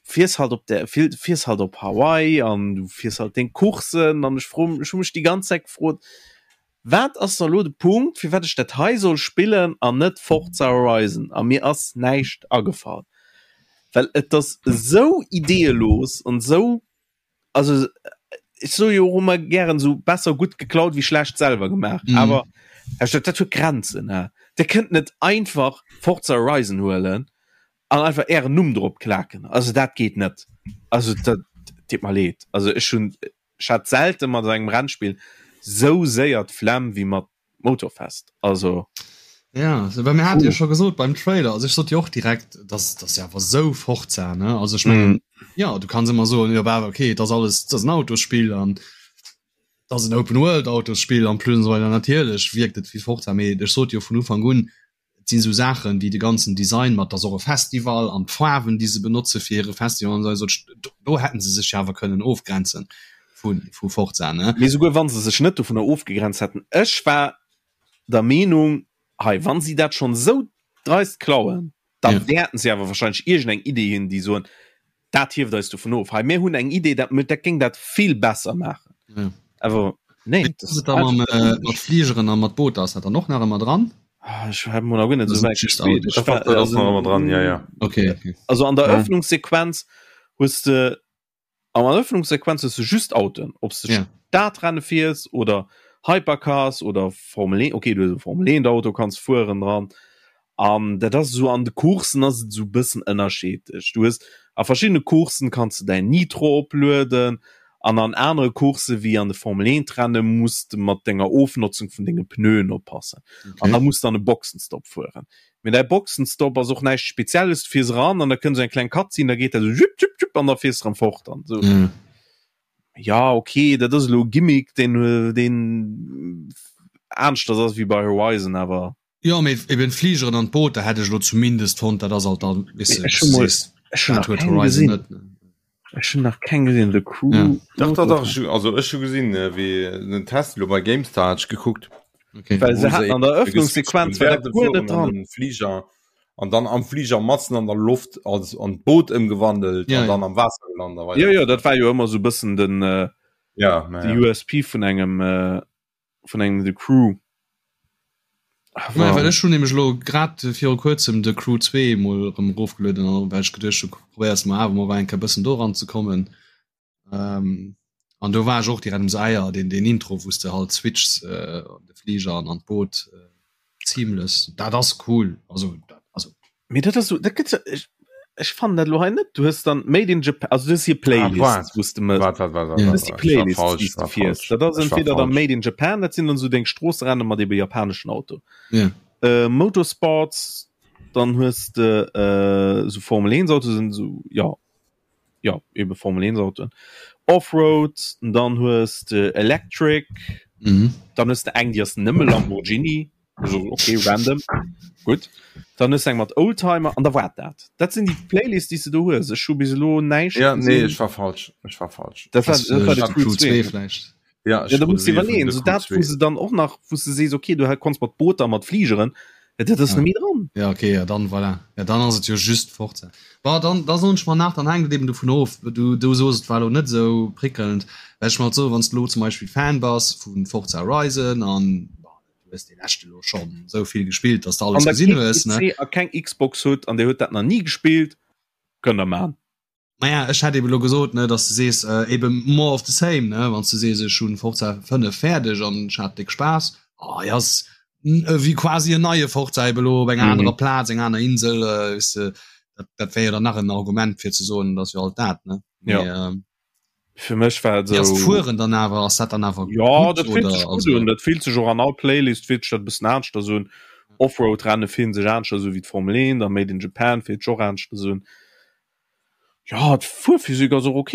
Speaker 1: fiers halt op der fiers halt op Hawaii an du fiers halt deng Coursen an ech fro ech hu mech déi ganz Zäit gefrot, wat ass da lo de Punkt firwat ech dat hei soll spillen an net Forza Horizon a mir ass näischt agefall, well et ass esou ideeëlos an esou also ech soe jo och ëmmer gären esou besser gutt geklaut wéi schlecht selwer gemaach mm. awer dat huet Grenzen ne Dir kënnt net einfach Forza Horizon huelen an einfach ären Numm drop klaken also dat geet net also dat deet mer leed also ech hunn ech hat selten mat engem Rennspill sou séier d'Flemm wéi mat Motorfest also
Speaker 2: ja so, mir hat ja schon gesot beim Trailer also ich sot jo och direkt dass das ja awer sou Forza ne also ich mein, mm. ja du kannst immer so ja, okay das alles das ein Autospiel an das ein Open World Autospiel an plus und so weiter natierlech wirkt et wie Forza mee ech sot jo vun Ufang un Et sinn esou Saachen wéi de ganzen Design mat, dass och e Festival an d'Faarwen, déi se benotze fir hire Festival an esou, do hätten se sech jo awer kënnen ofgrenzen vu vu Forza, ne?
Speaker 1: Mee souguer wa se sech net dovunner ofgegrenzt hätten, ech war der Meenung, hei, wa si dat schonn esou dreist klauen, da wäerten se awer wahrscheinlech iergendeng Idee hunn, déi soen, Dat hieft eis dovun of. Hei, mir hunn eng Idee, dat, dat géing dat vill besser maachen.
Speaker 2: Ja.
Speaker 1: Awer nee,
Speaker 2: Wéi ass et da mam, äh, mat Fligeren a mat Booter? Ass dat dann och nach ëmmer dran?
Speaker 1: Ah, ech hat mol nach guer net
Speaker 2: Das
Speaker 1: esou wäit
Speaker 2: just
Speaker 1: gespillt.
Speaker 2: Auto.
Speaker 1: Ech war,
Speaker 3: Dat ass
Speaker 1: also,
Speaker 3: nach ëmmer dran, ja, ja.
Speaker 2: Okay, okay.
Speaker 1: also an der
Speaker 3: Ja.
Speaker 1: Eröffnungssequenz hues de an der Eröffnungssequenz hues de just Autoen, ob s de
Speaker 2: Ja.
Speaker 1: Stadrenne fiers oder Hypercars oder Formel 1, okay, du hues e Formel 1 Auto kanns fueren dran. An dat ass esou an de Coursen ass et esou e bëssen ënnerscheedlech. Du hues a verschiddene Coursen kanns de däin Nitro oplueden an an anere Coursse wéi an de Formel 1 Renne muss de mat denger Ofnotzung vun denge Pneuen oppassen. An da muss de an e Boxenstopp fueren. Mee däi Boxenstopp ass och näischt Spezielles, du fiers eran an da kënnt esou eng kleng Cutscene, da geet dat esou jupp jupp jupp an da fiers de erëm fort an esou. Ja okay, dat ass elo e Gimmick, deen deen aneschters ass wéi bei Horizon, awer.
Speaker 2: Jo, mee eben d'Fligeren an d'Booter hätt ech elo zumindest fonnt, dat ass alt dann, weess de,
Speaker 1: Ech hu mol, ech hunn
Speaker 2: dat
Speaker 1: nach
Speaker 2: huet
Speaker 1: keng
Speaker 2: Horizon
Speaker 1: gesinn.
Speaker 2: net, ne?
Speaker 1: Ech hunn nach keng gesinn, The Crew.
Speaker 2: Ja.
Speaker 3: Dach, dach, dach, ech hu, also ech hu gesinn, wéi den Test elo bei GameStar hat ech gekuckt.
Speaker 2: Okay.
Speaker 1: Well se
Speaker 3: Wou se
Speaker 1: haten an der
Speaker 3: eben
Speaker 1: Eröffnungssequenz war dat
Speaker 3: während dem
Speaker 1: guer net
Speaker 3: Fueren an
Speaker 1: dran.
Speaker 3: den Fliger an dann am Fliger matzen an der Loft als an d'Boot ëmgewandelt
Speaker 2: Ja,
Speaker 3: an
Speaker 2: ja.
Speaker 3: dann am Waasser gelant a weider.
Speaker 1: Jo, jo, dat war jo ëmmer sou bëssen den, äh,
Speaker 3: Ja, ma
Speaker 1: de
Speaker 3: ja.
Speaker 1: USP vun engem, äh, vun engem The Crew.
Speaker 2: Naja, well ech hunn nämlech elo grad viru kuerzem The Crew 2 mol erëm erofgelueden an well ech geduecht hu probéiers mol awer mol eng Kéier bëssen do eranzekommen. Ähm, an do war ech och direkt um se Eier deen deen Intro wou s de halt switchs äh, de Fliger an an d'Boot äh, seamless dat ass cool also dat, also
Speaker 1: Mee dat ass so, dat gëtt ech, ech fannen dat lo hei net. Du hues dann Made in Japan, also du hues hier
Speaker 3: Ah,
Speaker 1: Playlists,
Speaker 3: waart,
Speaker 1: wou s de mëss.
Speaker 3: waart, waart, waart, waart,
Speaker 2: Ja.
Speaker 1: Du
Speaker 3: waart,
Speaker 1: hues déi
Speaker 3: waart. Ech war
Speaker 1: Playlists,
Speaker 3: falsch,
Speaker 1: déi s
Speaker 3: ech
Speaker 1: de
Speaker 3: war
Speaker 1: fiers.
Speaker 3: falsch.
Speaker 1: Dat ass
Speaker 3: Ech war
Speaker 1: entweder dann
Speaker 3: falsch.
Speaker 1: Made in Japan, dat sinn dann so deng Stroosserenne mat ebe japaneschen Auto.
Speaker 2: ja
Speaker 1: Äh, Motorsports, dann hues de äh, so Formel 1 Auto sinn so ja ja ebe Formel 1 Autoen. Offroad, dann hues de Electric,
Speaker 2: mhm.
Speaker 1: dann hues de eng, déi ass nëmme Lamborghini. Also, okay, random. Gutt. Dann hues du eng mat Oldtimer an da war dat. Dat sinn déi Playlist, déi s du do hues. Ech hu bis elo näischt
Speaker 3: Ja, nee, ech war falsch. Ech war falsch.
Speaker 1: Dat war, dat war de Crew 2.
Speaker 2: vläicht.
Speaker 3: Ja,
Speaker 1: ja, da musst du iwwerleeën, so dat, wou se dann och nach, wou du sees, okay, du konns mat Booter, mat Fligeren, dat ass
Speaker 2: ja.
Speaker 1: net méi dran.
Speaker 2: Ja, okay, ja, dann voilà. Ja, dann ass et jo just Forza. Bon, dann, da soen ech mer nach, dann hänkt et eben dovun of, du, du soos, et war elo net esou prickelnd, well ech mer halt soen, wann s du elo zum Beispill Fan bass vu Forza Horizon an du hues dee leschte lo schonn esou vill gespillt, dass du alles
Speaker 1: Wann der
Speaker 2: gesinn
Speaker 1: kee
Speaker 2: hues, ne?
Speaker 1: PC a keng Xbox hutt an dir hutt dat nach ni gespillt, kënnt der man.
Speaker 2: Maja, ech hätt eben elo gesot, ne, dass du sees, eben more of the same, ne, wann s du sees, ech hunn Forza 5 fäerdeg an ech hat déck Spaass, oh ja, ass wéi quasi en neie Forza eben elo op enger anerer Plaz, eng aner Insel, weess de, dat, dat wär jo dann nach en Argument fir ze soen, et ass jo alt dat, ne.
Speaker 1: Ja.
Speaker 2: Mee, ähm,
Speaker 1: Fir mech war et
Speaker 2: Wéi ass
Speaker 1: esou.
Speaker 2: d'Fueren dann awer, ass dat dann awer
Speaker 1: Ja,
Speaker 2: gutt
Speaker 1: dat fillt
Speaker 2: oder
Speaker 1: sech gutt
Speaker 2: also?
Speaker 1: un. Dat fillt sech och an all Playlist fillt sech dat e bëssen aneschters un. Offroad-Renne fillen sech aneschters u wéi d'Formel 1, a Made in Japan fillt sech och aneschters un. Ja, d'Fuerphysik ass och ok.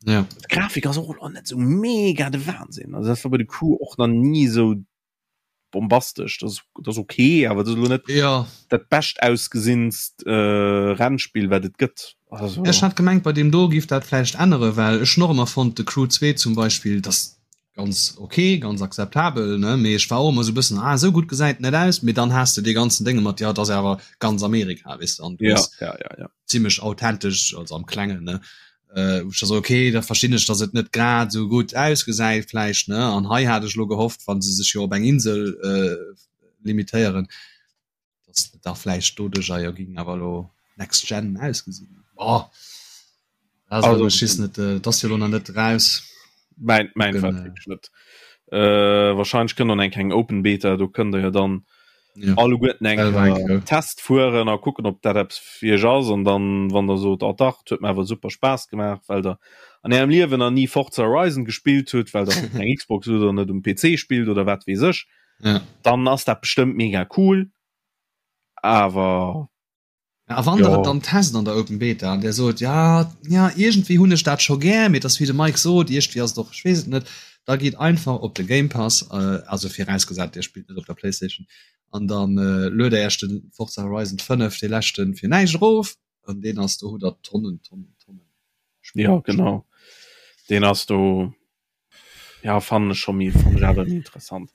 Speaker 2: Ja.
Speaker 1: D'Grafik ass och elo net esou mega de Wahnsinn. Also dat war bei de Crew och nach ni esou bombastesch. Dat ass, dat ass ok, awer dat ass elo net
Speaker 2: Ja.
Speaker 1: dat bescht ausgesinnst äh, Rennspill, wat et gëtt. Also.
Speaker 2: Ech hat gemengt, bei deem do giff dat vläicht änneren, well ech hunn och ëmmer fonnt, de Crew 2 zum Beispill, dass ganz ok, ganz akzeptabel, ne, mee ech war och ëmmer sou bëssen, ah esou gutt gesäit net aus, mee dann has de dee ganzen Dénge mat, jo et ass awer ganz Amerika, weess de, an du
Speaker 1: Ja,
Speaker 2: hues
Speaker 1: ja, ja, ja.
Speaker 2: zimmlech authentesch, also am Klengen, ne, äh, wou ech da so, ok, da verstinn ech, datt et net grad esou gutt ausgesäit vläicht, ne, an hei hat ech elo gehofft, wa se sech jo op eng Insel äh, limitéieren, dass da vläicht doduercher jo ging awer lo next gen ausgesinn. Oh. Also, also schiss net äh, das jo lo net raus.
Speaker 1: Mein, mein
Speaker 2: Kucken,
Speaker 1: äh, net. Äh, wahrscheinlich kënnt dann eng keng Open Beta, do kënnt der jo dann
Speaker 2: ja.
Speaker 1: alleguerten eng
Speaker 2: Äh,
Speaker 1: Test fueren a kucken ob dat eppes fir iech ass an dann wann der sot oh dach huet mir awer super Spaass gemaach, well der an ärem Liewen nach nie Forza Horizon gespillt hutt, well der eng Xbox oder net um PC spillt oder wat weess ech.
Speaker 2: Ja.
Speaker 1: Dann ass dat bestëmmt mega cool, awer
Speaker 2: Ja, a wann der
Speaker 1: jo.
Speaker 2: et dann test an der Open Beta an der sot ja ja iergendwéi hunn ech dat scho gär, mee et ass wéi de Mike sot, iergendwéi ass et och, ech weess et net, da gitt einfach op de Game Pass, äh, also virausgesat dir spillt net op der Playstation, an dann äh, luet der iech de Forza Horizon 5, dee leschten, fir näischt erof an deen ass, do hutt der Tonnen, Tonnen, Tonnen Spill.
Speaker 1: Ja, genau. Deen ass do Ja fannen ech scho méi fannen ech awer méi interessant.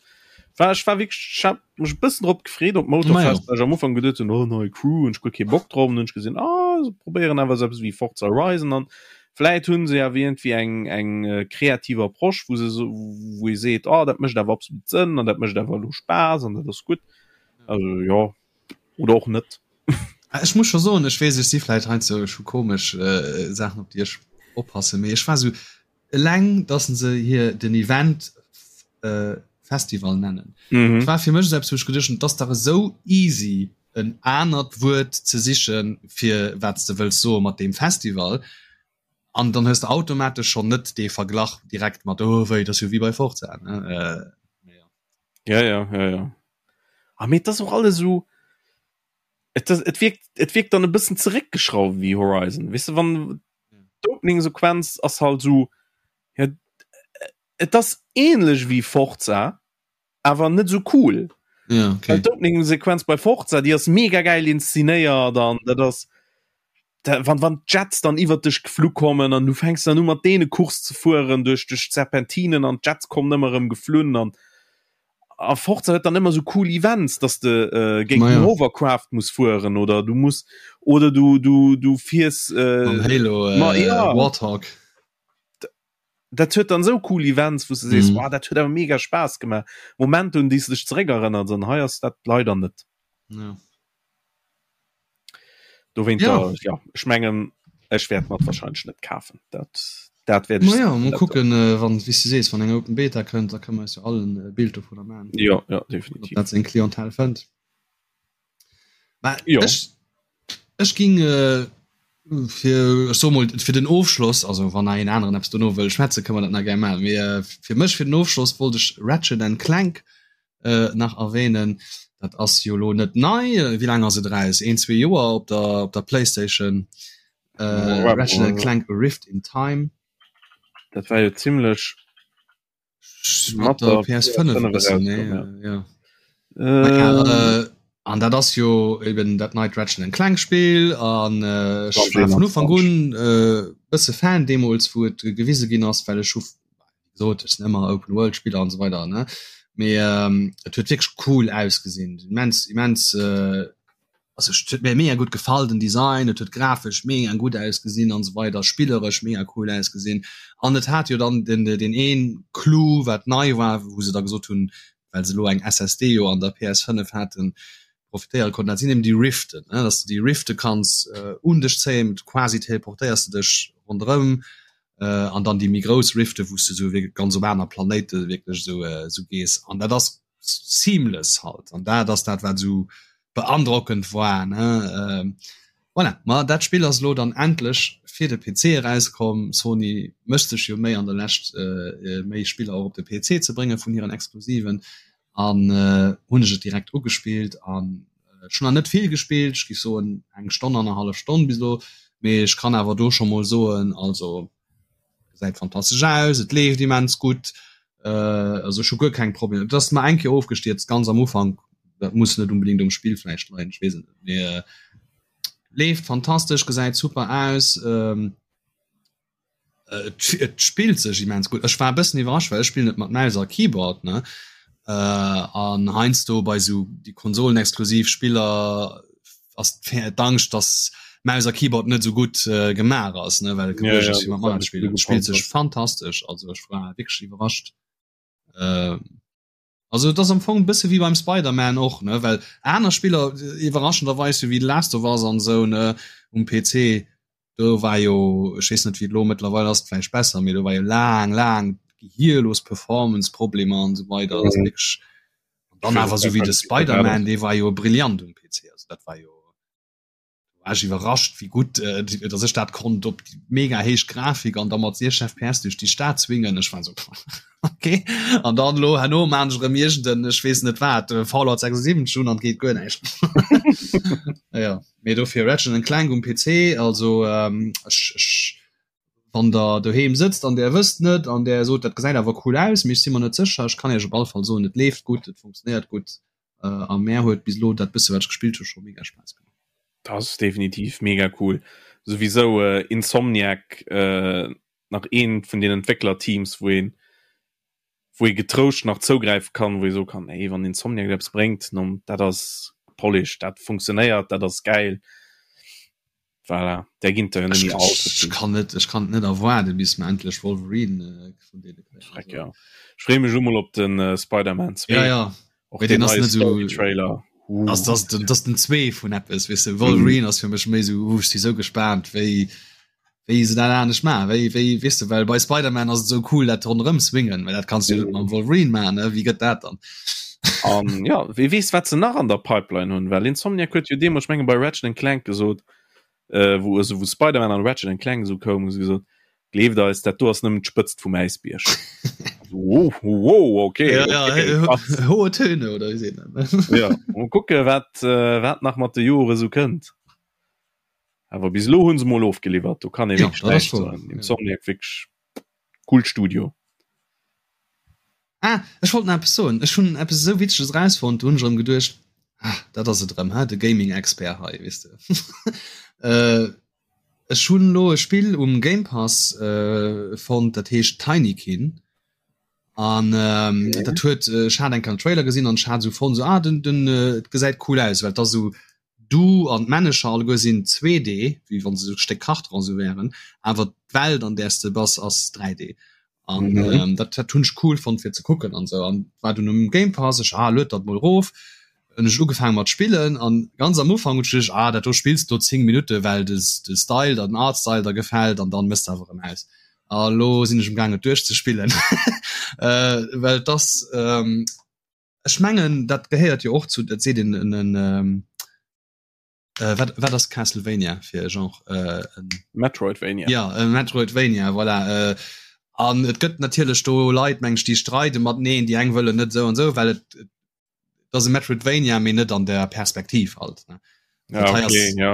Speaker 1: War ech war wierklech ech hat mech e bëssen drop gefreet op Motorfest, well ech am Ufank geduet hunn, oh nei Crew hunn ech guer kee Bock drop an hunn ech gesinn, ah se probéieren awer esou eppes wéi Forza Horizon an vläit hunn se awer iergendwéi eng eng kreativ Approche, wou se esou wou ee seet, oh dat mécht awer absolut Sënn an dat mécht awer elo Spaass an dat ass gutt. Also jo oder och net.
Speaker 2: Ech muss scho soen, ech weess ech si vläit heiansdo ech hu komesch Saachen op déi ech oppassen, mee ech war esou Eleng dass se hir den Event Festival nennen. Mm -hmm. War fir mech selbst wou ech geduecht hunn, dass dach esou easy en anert Wuert ze sichen fir wat s de wëlls soe mat deem Festival an dann hues de automatesch schonn net dee Verglach direkt mat oh wéi dat ass jo wéi bei Forza ne
Speaker 1: äh, ja. Ja ja ja ja. Ah, mee et ass och alles esou et, et wirkt et wirkt dann e bëssen zeréckgeschrauft wéi Horizon weess de wann d'Opening-Sequenz ass halt so ja, et ass ähnlech wéi Forza awer net sou cool
Speaker 2: ja, okay.
Speaker 1: d'Opening-Sequenz bei Forza déi ass mega geil inszenéiert an dat ass da, wann wann d'Jets dann iwwer dech geflu kommen an du fänks dann u mat deene Course ze fueren duerch duerch d'Serpentinen an d'Jets kommen ëmmer erëm geflunn an a Forza huet dann ëmmer sou cool Events, dass de äh, géint den Hovercraft muss fueren oder du muss oder du du du fiers
Speaker 2: äh, Halo
Speaker 1: äh, ma, ja.
Speaker 2: Warthog.
Speaker 1: Dat huet dann sou cool Events, wou du sees, mm. wow, dat huet awer mega Spaass gemaach. Moment un déi du dech zeréck erënnert an hei ass dat leider net.
Speaker 2: Ja.
Speaker 1: Dowéint ja. ja ech mengen ech wäert mat wahrscheinlich net kafen dat dat
Speaker 2: werd ich ja, mal gucken äh, wann wie du sees wann eng open Beta kënnt da kann man ja allen äh, Bild davon
Speaker 1: machen ja ja definitiv
Speaker 2: dat seng Klientel fënnt
Speaker 1: ja.
Speaker 2: ech, ech ging äh, fir ech so mol fir den Ofschloss also wann een aneren Apps dono wëll schwätze kann man dat na gerne machen mee äh, fir mech fir den Ofschloss wollt ech Ratchet and Clank nach erwähnen. Dat ass jo lo net nei. Wéi laang ass et eraus? Een, zwee Joer op der, op der Playstation. Äh, Ratchet and Clank A Rift in Time.
Speaker 1: Dat war jo zimlech
Speaker 2: mat der PS5 e bëssen, ne? Ja. Äh, an dat ass jo eben dat neit Ratchet and Clank Spill an äh, ech war vun Ufank un äh, bësse Fan deemools wou et gewise ginn ass, well ech hu gesot ech sinn ëmmer Open World Spiller an esou weider ne. Mee ähm, et huet wierklech cool ausgesinn, immens immens äh, also et huet mir mega gutt gefall den Design, et huet grafesch mega gutt ausgesinn an esou weider, spilleresch mega cool ausgesinn an et hat jo dann den den een Clou wat nei war, wou se da gesot hunn, well se elo eng SSD jo an der PS5 haten, profitéiere konnten, dat sinn eben déi Riften, ne, dass du déi Rifte kanns äh, un dech zéien, quasi teleportéiers du dech ronderëm äh, an dann déi méi grouss Rifte, wou s du sou wierklech ganz op aner Planéite wierklech sou äh, sou gees an dat ass seamless halt an dat ass dat wat sou beandrockend war ne ähm, voilà. Ma dat Spill ass lo dann endlech fir de PC erauskomm. Sony mécht sech jo méi an der Lescht äh, méi Spiller och op de PC ze brénge vun hiren Exklusiven an äh, hunn ech et direkt ugespillt an äh, schon nach net vill gespillt, ech géif soen eng Stonn annerhallef Stonn bis elo, mee ech kann awer do scho mol soen also gesäit fantastesch aus, et leeft immens gutt, äh, also ech hu guer keng Problemer. Et ass mer eng Kéier ofgestierzt ganz am Ufank, dat muss net unbedingt um Spill vläicht leien, ech weess et net, mee äh, leeft fantastesch, gesäit super aus, ähm, et, et spillt sech immens gutt. Ech war e bëssen iwwerrascht, well ech spillen et mat Maus a Keyboard, ne, äh, an heiansdo bei sou déi konsolenexklusiv Spiller ass d'Angscht, dass Maus a Keyboard net sou gutt äh, gemaach ass, ne, well ja, ja, mat mat spielen. Spielt sech fantastesch, also ech war wierklech iwwerrascht. Äh, also et ass am Fong bësse wéi beim Spider-Man och, ne, well aner Spiller äh, iwwerraschenderweis wéi The Last of Us an sou ne um PC, do war jo ech weess net wéi et lo mëttlerweil ass, vläicht besser, mee do war jo laang laang gehierlos Performance-Problemer an sou weider. Mhm. Wierklech Dann awer sou wéi de Spider-Man, dee war jo brillant um PC. Also dat war jo war ech iwwerrascht, wéi gutt äh, dass ech dat konnt op déi mega héich Grafik an da mat 60 FPS duerch déi Stad swingen. Ech war sou okay. An dann lo herno maan ech erëm iergenden, ech weess net wat, äh, Fallout 76 un an et geet guer näischt. Ja, mee dofir Ratchet and Clank um PC, also ähm, ech, ech Wann der doheem sëtzt an der wësst net an der sot dat gesäit awer cool aus, mee ech si mer net sécher, ech kann iech op alle Fall soen, et leeft gutt, et funktionéiert gutt a mär huet bis elo dat bësse wat ech gespillt hu scho mega Spaass gemaach.
Speaker 1: Dat ass definitiv mega cool. Souwisou Insomniac nach eent vun den Entwécklerteams wou een wou ee getrouscht nach zougräife kann, wou ee soe kann, hey, wann Insomniac eppes bréngt, non, dat ass polished, dat funktionéiert, dat ass gäil. Voilà, där ginn der jo net méi
Speaker 2: all ze vill. Ech kann net, ech kann et net erwaarden, bis mer endlech Wolverine vun deene
Speaker 1: kréien. Schreck, ja. Ech freeë mech elo mol op de Spider-Man 2.
Speaker 2: Ja, ja.
Speaker 1: Och deen neie Story-Trailer.
Speaker 2: Ass das den, das den 2 vun eppes, weess de. Wolverine ass fir mech méi esou, uh, ech si sou gespaant, wéi, wéi se dat anescht maachen, wéi, wéi, weess de, well bei Spider-Man ass et esou cool, dat ronderëm swingen, well dat kanns du jo net mam Wolverine maachen, ne, wéi gëtt dat dann?
Speaker 1: An ja, wee weess, wat se nach an der Pipeline hunn, well Insomniac huet jo deemools, ech menge bei Ratchet and Clank gesot, äh, wou, also wou Spider-Man an Ratchet and Clank esou koum, hu se gesot, gleeft eis, dat do ass nëmmen d'Spëtzt vum Äisbierg. Wow, wow, okay.
Speaker 2: Ja, ja, okay, krass. Hohe Töne, oder wéi seet een dat?
Speaker 1: Ja, mol kucke, wat, äh, wat nach mat de Jore sou kënnt. Awer bis elo hunn se mol ofgeliwwert, do kann ee
Speaker 2: Ja,
Speaker 1: wierklech
Speaker 2: dat ass
Speaker 1: näischt
Speaker 2: woer,
Speaker 1: soen.
Speaker 2: ja.
Speaker 1: Insomniac wierklech coolt Studio.
Speaker 2: Ah, ech wollt nach eppes soen. Ech hunn eppes esou Witzeges erausfonnt, do hunn ech erëm geduecht, ah, dat ass et erëm, he, de Gaming-Expert hei, weess de. Äh, ech hunn elo e Spill um Game Pass äh, fonnt, dat heescht Tinykin. An ähm, okay. dat huet, ech hat eng Kéier en Trailer gesinn an ech hat esou fonnt, esou, ah, den, den, et gesäit cool aus, well et ass esou Du an d'Männecher alleguer sinn 2D, wéi wann se esou Stéck Kartron esou wären, awer d'Welt an där s de bass ass 3D. An mhm. ähm, dat, dat hunn ech cool fonnt fir ze kucken an sou. An war dunn um Game Pass, ech ah, lued dat mol rof. Hunn ech ugefaangen mat spillen an ganz am Ufank hunn ech geduecht, ah, dat do spills du 10 Minutte well des, de Style, den Art Style der gefält an dann mëss de awer erëm aus. A lo sinn ech um gaangen et duerchzespillen. äh, well das ähm, Ech mengen dat gehéiert jo och zu, dat seet een en en ähm, äh, wat, wat ass Castlevania fir e Genre? Äh, en,
Speaker 1: Metroidvania.
Speaker 2: Ja, e Metroidvania, voilà. Äh, an et gëtt natierlech do Leit, meng ech, déi streide mateneen, déi eng wëllen net esou an esou, well et, et ass e Metroidvania, mee net an der Perspektiv halt. Ne?
Speaker 1: Ja,
Speaker 2: Dat hei
Speaker 1: okay,
Speaker 2: ass,
Speaker 1: ja.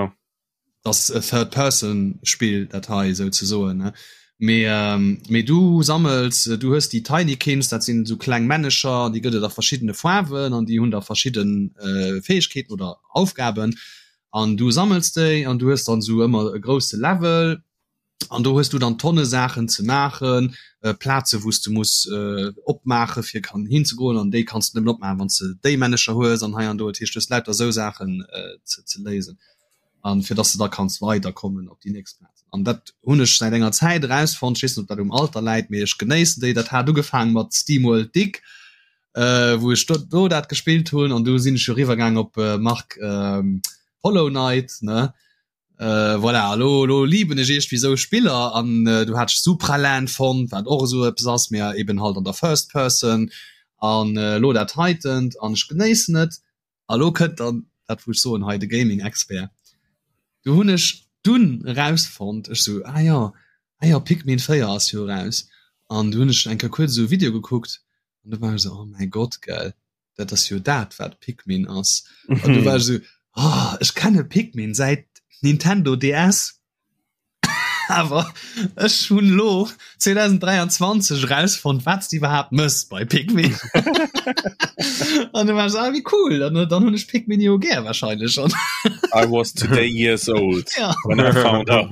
Speaker 2: das e Third-Person-Spill, dat hei souzesoen. Ne? Mee ähm, mee du sammels, du hues déi Tinykins, dat sinn esou kleng Männecher, déi gëtt et a verschiddene Faarwen an déi hunn da verschidden äh, Fäegkeeten oder Aufgaben. An du sammels déi an du hues dann esou ëmmer e grousse Level an do hues du dann Tonne Saachen ze maachen, äh, Plaze wou s du muss äh, opmaache fir kann hinzegoen an déi kanns du nëmmen opmaachen, wann s de déi Männecher hues an hei an do. Dat heescht, du hues lauter esou Saachen äh, ze, ze léisen. an fir dass de da kanns weider kommen op déi nächst Plaz. An dat hunn ech säit enger Zäit erausfonnt, ech weess net ob dat um Alter läit, mee ech genéissen déi. Dat hat ugefaangen mat SteamWorld Dig, äh, wou ech do, do dat gespillt hunn an du sinn ech jo riwwer gaang op äh, Marc ähm, Hollow Knight ne. Äh, voilà, lo, lo lieben ech iergendwéi sou Spiller an äh, du hat ech Supraland fonnt, wat och esou eppes ass, mee eben halt an der First Person an äh, lo dat heitent an ech genéissen et. A lo kënnt dann dat wou ech soen hei de Gaming Expert. Du hunn ech dunn erausfonnt, ech sou ah jo, ah jo Pikmin 4 ass jo eraus an du hunn ech eng Kéier kuerz esou e Video gekuckt an du war ech sou oh mäi Gott gell, dat ass jo dat wat Pikmin ass. An du war ech sou oh ech kenne Pikmin säit Nintendo DS. Awer ech hunn lo 2023 erausfonnt, wat s de iwwerhaapt mëss bei Pikmin. An du war ech, ah, wéi cool, an dann hunn ech Pikmin jo gär wahrscheinlech schon.
Speaker 1: I was today years old
Speaker 2: ja.
Speaker 1: when I found out.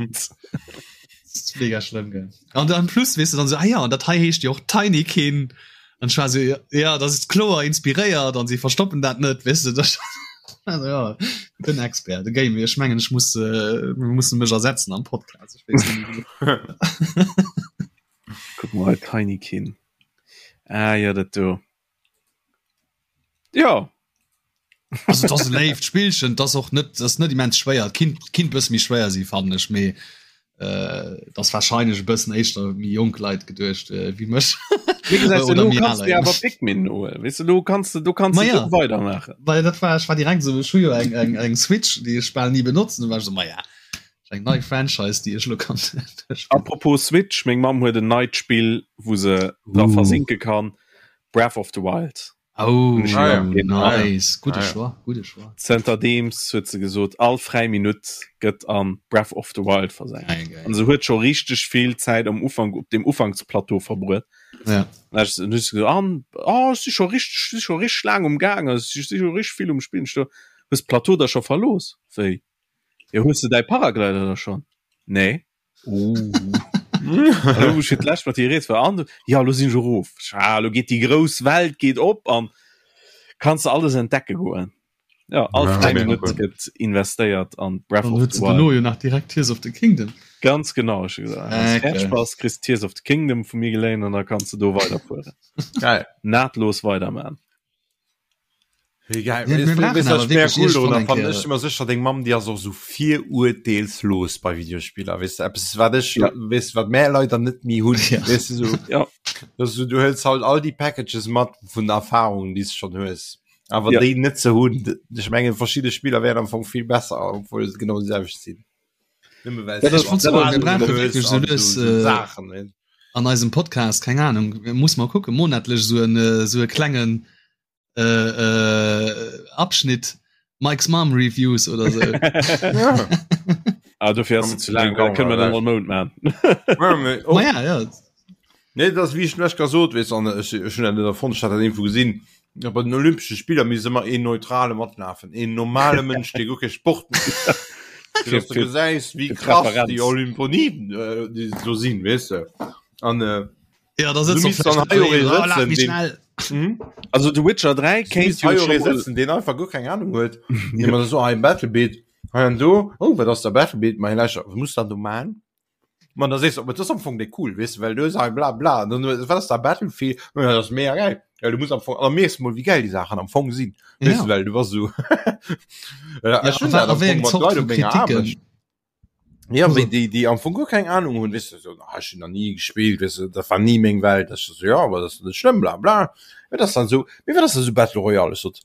Speaker 2: Mega schlëmm gell. An dann plus weess du dann so, ah ja, an dat hei heescht jo och Tinykin. An ech war so, ja, dat ass kloer inspiréiert an si verstoppen dat net, weess de. Dat also, ja, den Expert, de Game. Ech mengen, ech muss, äh, mir mussen mech ersetzen am Podcast. Ech weess net méi.
Speaker 1: Kuck mol hei, Tinykin. Ah ja, dat do. Ja.
Speaker 2: Also, dat ass e léift Spillchen, dat ass och net, dat ass net immens schwéier. Et kinnt, kinnt bësse méi schwéier si fannen ech, mee äh, dat ass wahrscheinlech e bëssen éischter méi jonk Leit geduecht äh, wéi mech.
Speaker 1: Wéi gesäis du,
Speaker 2: Oder
Speaker 1: lo
Speaker 2: méi
Speaker 1: kanns
Speaker 2: aler
Speaker 1: du awer
Speaker 2: Leit.
Speaker 1: Pikmin holen. Weess du, lo kanns du, do kanns
Speaker 2: Ma
Speaker 1: du
Speaker 2: ja.
Speaker 1: do weidermaachen.
Speaker 2: Well dat war, ech war direkt esou, ech hu jo eng, eng, eng Switch, déi ech bal ni benotzen, du war ech esou, ma ja, eng nei Franchise, déi ech lo kann duerchspillen.
Speaker 1: Apropos Switch, meng Mamm huet en neit Spill, wou se dra
Speaker 2: Uh.
Speaker 1: versinke kann, Breath of the Wild.
Speaker 2: Oh,
Speaker 3: Ah, ja.
Speaker 2: nice. Gudde
Speaker 3: Ah, ja.
Speaker 2: Choix, gudde Choix.
Speaker 1: Zënterdeems huet se gesot, all fräi Minutt gëtt an Breath of the Wild versenkt.
Speaker 2: Geil, geil.
Speaker 1: An se huet scho richteg vill Zäit am Ufank op dem Ufanksplateau verbruet.
Speaker 2: Ja.
Speaker 1: Dann hat se gesot, an oh, ech si scho richteg, si scho richteg laang um Gaang, ech si scho richteg vill um Spillen. Ech so, Hues d'Plateau da scho verlooss? Wéi? Jo, hues de däi Paraglider da schonn? Nee. Oh. Hallo, wou ech fir d'lescht mat dir gereet war an ja lo sinn ech erof. Ah, lo geet déi grouss Welt geet op an kanns de alles entdecke goen. Ja, all
Speaker 3: Ja,
Speaker 1: fräi
Speaker 3: mega
Speaker 1: Minutt
Speaker 3: cool.
Speaker 1: gëtt investéiert an Breath
Speaker 2: Dann
Speaker 1: of
Speaker 2: huet
Speaker 1: the
Speaker 2: se
Speaker 1: Wild.
Speaker 2: dono jo nach direkt Tears of the Kingdom.
Speaker 1: Ganz genau, ech hu gesagt,
Speaker 2: Äh,
Speaker 1: wann s
Speaker 2: geil.
Speaker 1: fäerdeg bass, kriss Tears of the Kingdom vu mir geléint an da kanns de do weiderfueren.
Speaker 3: Geil.
Speaker 1: Nahtlos weiderman.
Speaker 3: Wéi geil.
Speaker 2: Mir- mir brauchen awer wierklech iergendwann eng
Speaker 3: Cool,
Speaker 2: Kéier-
Speaker 3: ech immer sécher deng Mamm déi ass och sou virurteelslos bei Videospiller weess de eppes wat ech
Speaker 1: Ja.
Speaker 3: weess wat mär leider net méi hunn
Speaker 2: Ja.
Speaker 3: weess de sou
Speaker 1: Ja.
Speaker 3: dass du du hëls halt all déi Packages mat vun Erfahrungen déi s schonn hues awer
Speaker 1: Ja.
Speaker 3: déi net ze hunn d- ech mengen verschidde Spiller wären am Fong vill besser obwuel se genau déi selwecht sinn Nëmme well
Speaker 1: Dat
Speaker 3: s
Speaker 1: ass-
Speaker 3: du
Speaker 2: Ich
Speaker 1: dat ass-
Speaker 2: wir brauchen
Speaker 3: hues
Speaker 2: wirklich so
Speaker 3: an
Speaker 2: lues,
Speaker 3: so- so
Speaker 2: äh,
Speaker 3: Saachen ne?
Speaker 2: an eisem Podcast, keng Ahnung, muss mal kucken, monatlech so en, äh, so e klengen äh, äh, Abschnitt Mike's Mom Reviews oder so.
Speaker 3: Ja.
Speaker 1: Ah, dofir ass se zu laang, da kënne mer dann all Mount man.
Speaker 3: Ja, mee och-
Speaker 2: Ma ja, ja.
Speaker 3: Nee, dat ass wéi ech lech gesot weess an ech ech hunn dat net erfonnt, ech hat dat iergendwou gesinn, ja, bei den Olympesche Spiller misst ëmmer een neutrale matlafen, een normale Mënsch, dee guer kee Sport mécht. Fir dass du
Speaker 1: Fir-
Speaker 3: gesäis, wéi
Speaker 1: fir
Speaker 3: krass
Speaker 1: Präferenz.
Speaker 3: déi Olymponiden äh, déi do sinn, weess de. An äh,
Speaker 2: Ja, da
Speaker 3: Du
Speaker 2: sitzt
Speaker 3: misst dann hei och ee
Speaker 2: oh, lach
Speaker 3: sëtzen,
Speaker 2: mich
Speaker 3: deen-
Speaker 2: schnell.
Speaker 3: hm?
Speaker 1: Also The Witcher 3
Speaker 3: Du
Speaker 1: kéint
Speaker 3: misst
Speaker 1: jo
Speaker 3: hei och
Speaker 1: scho
Speaker 3: ee
Speaker 1: mol
Speaker 3: sëtzen, deen einfach guer keng Ahnung huet. Dee mer so, hei Battlebeat, hei an do, oh, wat ass der Battlebeat, ma hei lauschter, wat muss dann do man? Man da sees du, aber das ist am Fong déi cool, weess du, well du hues hei bla bla, dann hues, wat ass da Battlefield, ja, das ist mega geil. Ja, du musst am Fong, an da mierks du mol, wéi geil déi Saachen am Fong sinn, weess
Speaker 2: Ja.
Speaker 3: du, well du bass esou, ja,
Speaker 2: Ja,
Speaker 3: ech hunn
Speaker 2: a
Speaker 3: dat
Speaker 2: wa- a
Speaker 3: am
Speaker 2: wéi
Speaker 3: Fong
Speaker 2: eng
Speaker 3: mat
Speaker 2: Zort
Speaker 3: Leit
Speaker 2: vu
Speaker 3: op menger
Speaker 2: Kritiken?
Speaker 3: Aarbecht. Ja,
Speaker 2: Also-
Speaker 3: wéi déi, déi am Fong guer keng Ahnung hunn, weess du, so, ah, ech hunn nach ni gespillt, weess du, dat war ni meng Welt, ech so, ja, aber das ist net schlëmm, bla bla. Wat ass dann so, mee wat ass da so Battle Royale? Ech sot,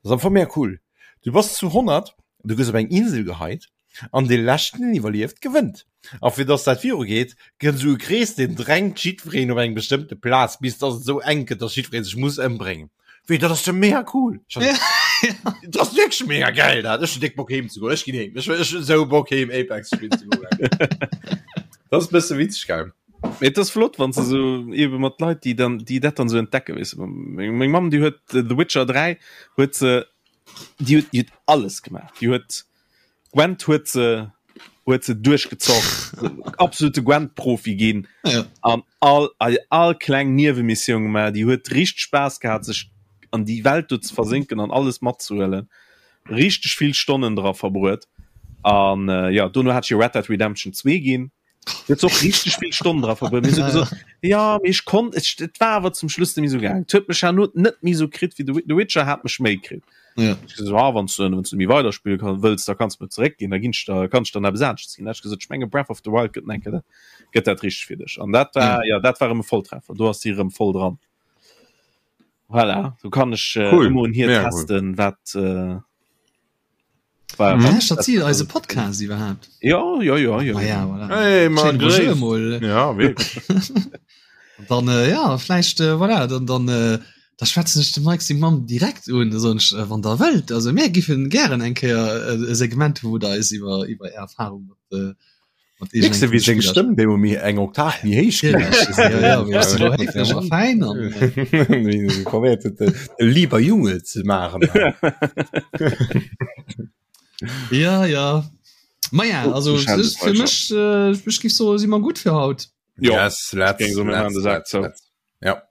Speaker 3: das ist am Fong mega cool. Du bass zu 100, du gëss op eng Insel geheit, an dee leschten deen iwwerlieft gewënnt. A fir dass dat viru geet, gëtt esou e Krees deen drängt jiddwereen op eng bestëmmte Plaz bis dass et esou enk gëtt, dass jiddweree sech muss ëmbréngen. Wéi dat ass jo mega cool. Dat ass wierklech mega geil dat. Ech hunn déck Bock heem ze goen. Ech ginn heem. Ech ech hunn esou Bock heem Apex spillen ze goen. Dat ass e bësse witzeg geil.
Speaker 1: Mee et ass flott, wann se so eben mat Leit, déi dann, déi dat dann so entdecken, weess de. Meng, meng Mamm, déi huet The Witcher 3 huet se, déi huet, déi huet alles gemaach. Déi huet Gwent huet se, huet se duerchgezockt, absolute Gwent-Profi ginn
Speaker 2: Ja.
Speaker 1: an all, all, all kleng Niewemissioun gemaach. Déi huet richteg Spaass gehat, sech an déi Welt do ze versénken an alles matzehuelen. Richteg vill Stonnen dra verbruet. An äh, ja, dono hat ech ihr Red Dead Redemption 2 ginn. Huet se och richteg vill Stonnen dra verbruet. Mir hu gesot, ja, mee ech konnt, et, et war awer zum Schluss net méi sou gaangen. Et huet mech herno net méi sou kritt wéi The, The Witcher hat mech méi kritt.
Speaker 2: Ja.
Speaker 1: Ech gesot, ah, wann du, wann du méi weiderspille kann, wëlls, da kanns du mir zeréckginn, da ginn ech der, kann ech der nach eppes anesches ginn. Da hat ech gesot, ech menge Breath of the Wild gëtt enke dat, gëtt dat richteg fir dech. An dat war, ja, dat war erëm e Volltreffer. Do ass si erëm voll dran. Voilà, do kann ech äh,
Speaker 3: Cool.
Speaker 1: ëmmer un hir
Speaker 3: Mega cool.
Speaker 1: testen, wat, äh, war,
Speaker 2: Mhm.
Speaker 1: wat,
Speaker 2: Lauschtert si eise Podcast iwwerhaapt?
Speaker 1: ja, ja, ja, ja.
Speaker 2: Ah ja, voilà.
Speaker 3: Hey, man,
Speaker 2: Schéine Bonjour
Speaker 3: gréisst.
Speaker 2: emol.
Speaker 3: Ja, wierklech.
Speaker 2: Dann äh, ja, vläicht äh, voilà, dann, dann äh, da schwätzen ech de Mike seng Mamm direkt un, da soen ech, äh, wann der wëllt, also mir giffen gären eng Kéier äh, e Segment hu wou der eis iwwer iwwer är Erfahrung mat äh, mat
Speaker 3: Mierks de, wéi seng
Speaker 2: Spiller
Speaker 3: Stëmm deemol méi eng Oktav méi héich ginn ass?
Speaker 2: Ja, ja, wéi ass elo héiflech a fäin an
Speaker 3: Wéi se probéiert huet, de de lieber Junge ze maachen.
Speaker 2: Ja, ja. Ma ja, also
Speaker 1: Ich halte
Speaker 2: es
Speaker 1: es
Speaker 2: ist fir
Speaker 1: weiter.
Speaker 2: mech äh, ech giff soe si mer gutt fir haut.
Speaker 1: Ja,
Speaker 3: Yes, let's,
Speaker 1: géing soen, mir maachen
Speaker 3: let's,
Speaker 1: de Sak
Speaker 3: let's,
Speaker 1: zou.
Speaker 3: let's. Ja.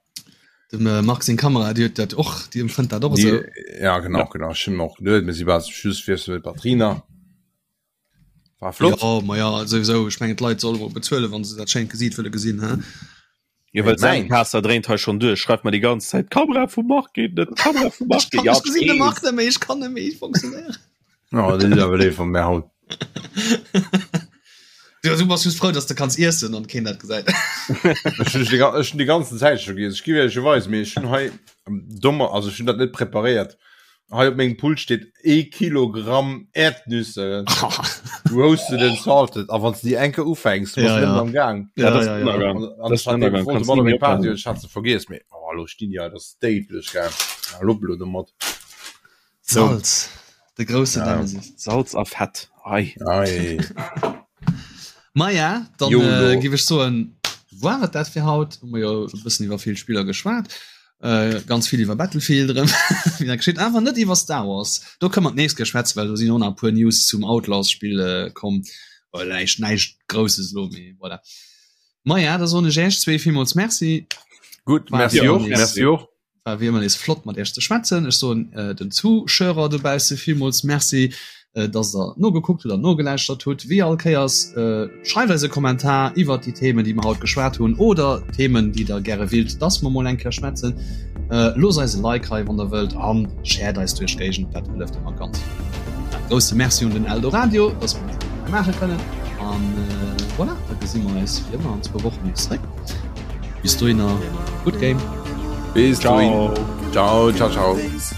Speaker 2: Dem äh, Marc seng Kamera, déi huet dat och, déi empfënnt dat och esou.
Speaker 3: Die, ja, genau, genau. Ech hunn och geduet, mir si bal zum Schluss, fir mit Batterien nach. War flott.
Speaker 2: Ja, ma ja, souwisou, ech mengen d'Leit solle mol bezuelen, wann se dat schéint Gesiit wëlle gesinn, hä?
Speaker 1: Jo, well
Speaker 3: Hey, mein.
Speaker 1: Zencaster dréint hei schonn duerch, schreift mer déi ganz Zäit, D'Kamera vum Marc geet net, d'Kamera vum Marc
Speaker 2: Ech
Speaker 1: geet.
Speaker 2: kann,
Speaker 1: Ja,
Speaker 2: ech gesinn de
Speaker 1: ech
Speaker 2: Marc
Speaker 1: weess.
Speaker 2: net méi, ech kann net méi funktionéieren.
Speaker 3: Oh, dat ass awer léif vun mär haut.
Speaker 2: Du, du bass just frou, dass de kanns iessen an keen dat gesäit.
Speaker 3: Ech hunn déi, ech hunn déi ganzen Zäit scho giess. Ech giff iech weisen, mee ech hunn hei dommer, also ech hunn dat net preparéiert. Hei op mengem Pult steet ee Kilogramm Erdnüsse, roasted and salted. A wann s de déi eng Kéier ufänks, du bass
Speaker 2: Ja,
Speaker 3: net
Speaker 2: ja.
Speaker 3: méi am Gaang.
Speaker 1: Ja,
Speaker 2: Ja,
Speaker 1: dat ass
Speaker 2: ja, ja.
Speaker 1: Ënnergang.
Speaker 3: An, an
Speaker 1: Dat
Speaker 3: ech
Speaker 1: ass
Speaker 3: hat
Speaker 1: Ënnergang,
Speaker 3: wollte
Speaker 1: kanns
Speaker 3: mat
Speaker 1: ni
Speaker 3: op
Speaker 1: méi
Speaker 3: eng Party,
Speaker 1: ophalen.
Speaker 3: ech hat se vergiess, mee oh, elo stinn déi hei, dat ass déidlech, gell. Ja, lopp elo domat.
Speaker 2: Salz, de grousse
Speaker 3: Ja.
Speaker 2: Nemesis.
Speaker 1: Salz a Fett, ei.
Speaker 3: Ei.
Speaker 2: Maja, dann
Speaker 3: Jolo.
Speaker 2: äh, giff ech soen, war et dat fir haut. Hu mer jo e bëssen iwwer vill Spiller geschwat. Äh, ganz vill iwwer Battlefield erëm, wéi dat geschitt, awer net iwwer Star Wars. Do kënne mer d'nächst Kéier schwätzen, well do sinn och nach e puer News zum Outlaws-Spill äh, komm. Well näischt, näischt Grousses elo, mee voilà. Maja, da soen ech Iech zwee villmools Merci.
Speaker 3: Gutt,
Speaker 2: War
Speaker 3: merci
Speaker 2: wéi
Speaker 3: och,
Speaker 2: ëmmer nees.
Speaker 3: merci och.
Speaker 2: War wéi ëmmer nees flott mat Iech ze schwätzen. Ech soen den Zuschauer dobausse villmools Merci, dass der nogekuckt hutt an nogelauschtert hutt. Wéi all Kéiers, schreift eis e Kommentar iwwert déi Themen, déi mer haut geschwat hunn oder Themen, déi der gäre willt, dass mer mol eng Kéier schwätzen. Loosst eis e Like hei, wann der wëllt, a shared eis duerch d'Géigend, dat hëlleft ëmmer ganz vill. E grousse Merci un den Eldoradio, dass mer dat hei maache kënnen. An voilà, da gesi mer eis wéi ëmmer an zwou Wochen nees zeréck. Bis dohinner, good game.
Speaker 3: Bis dohin. Ciao, ciao, ciao.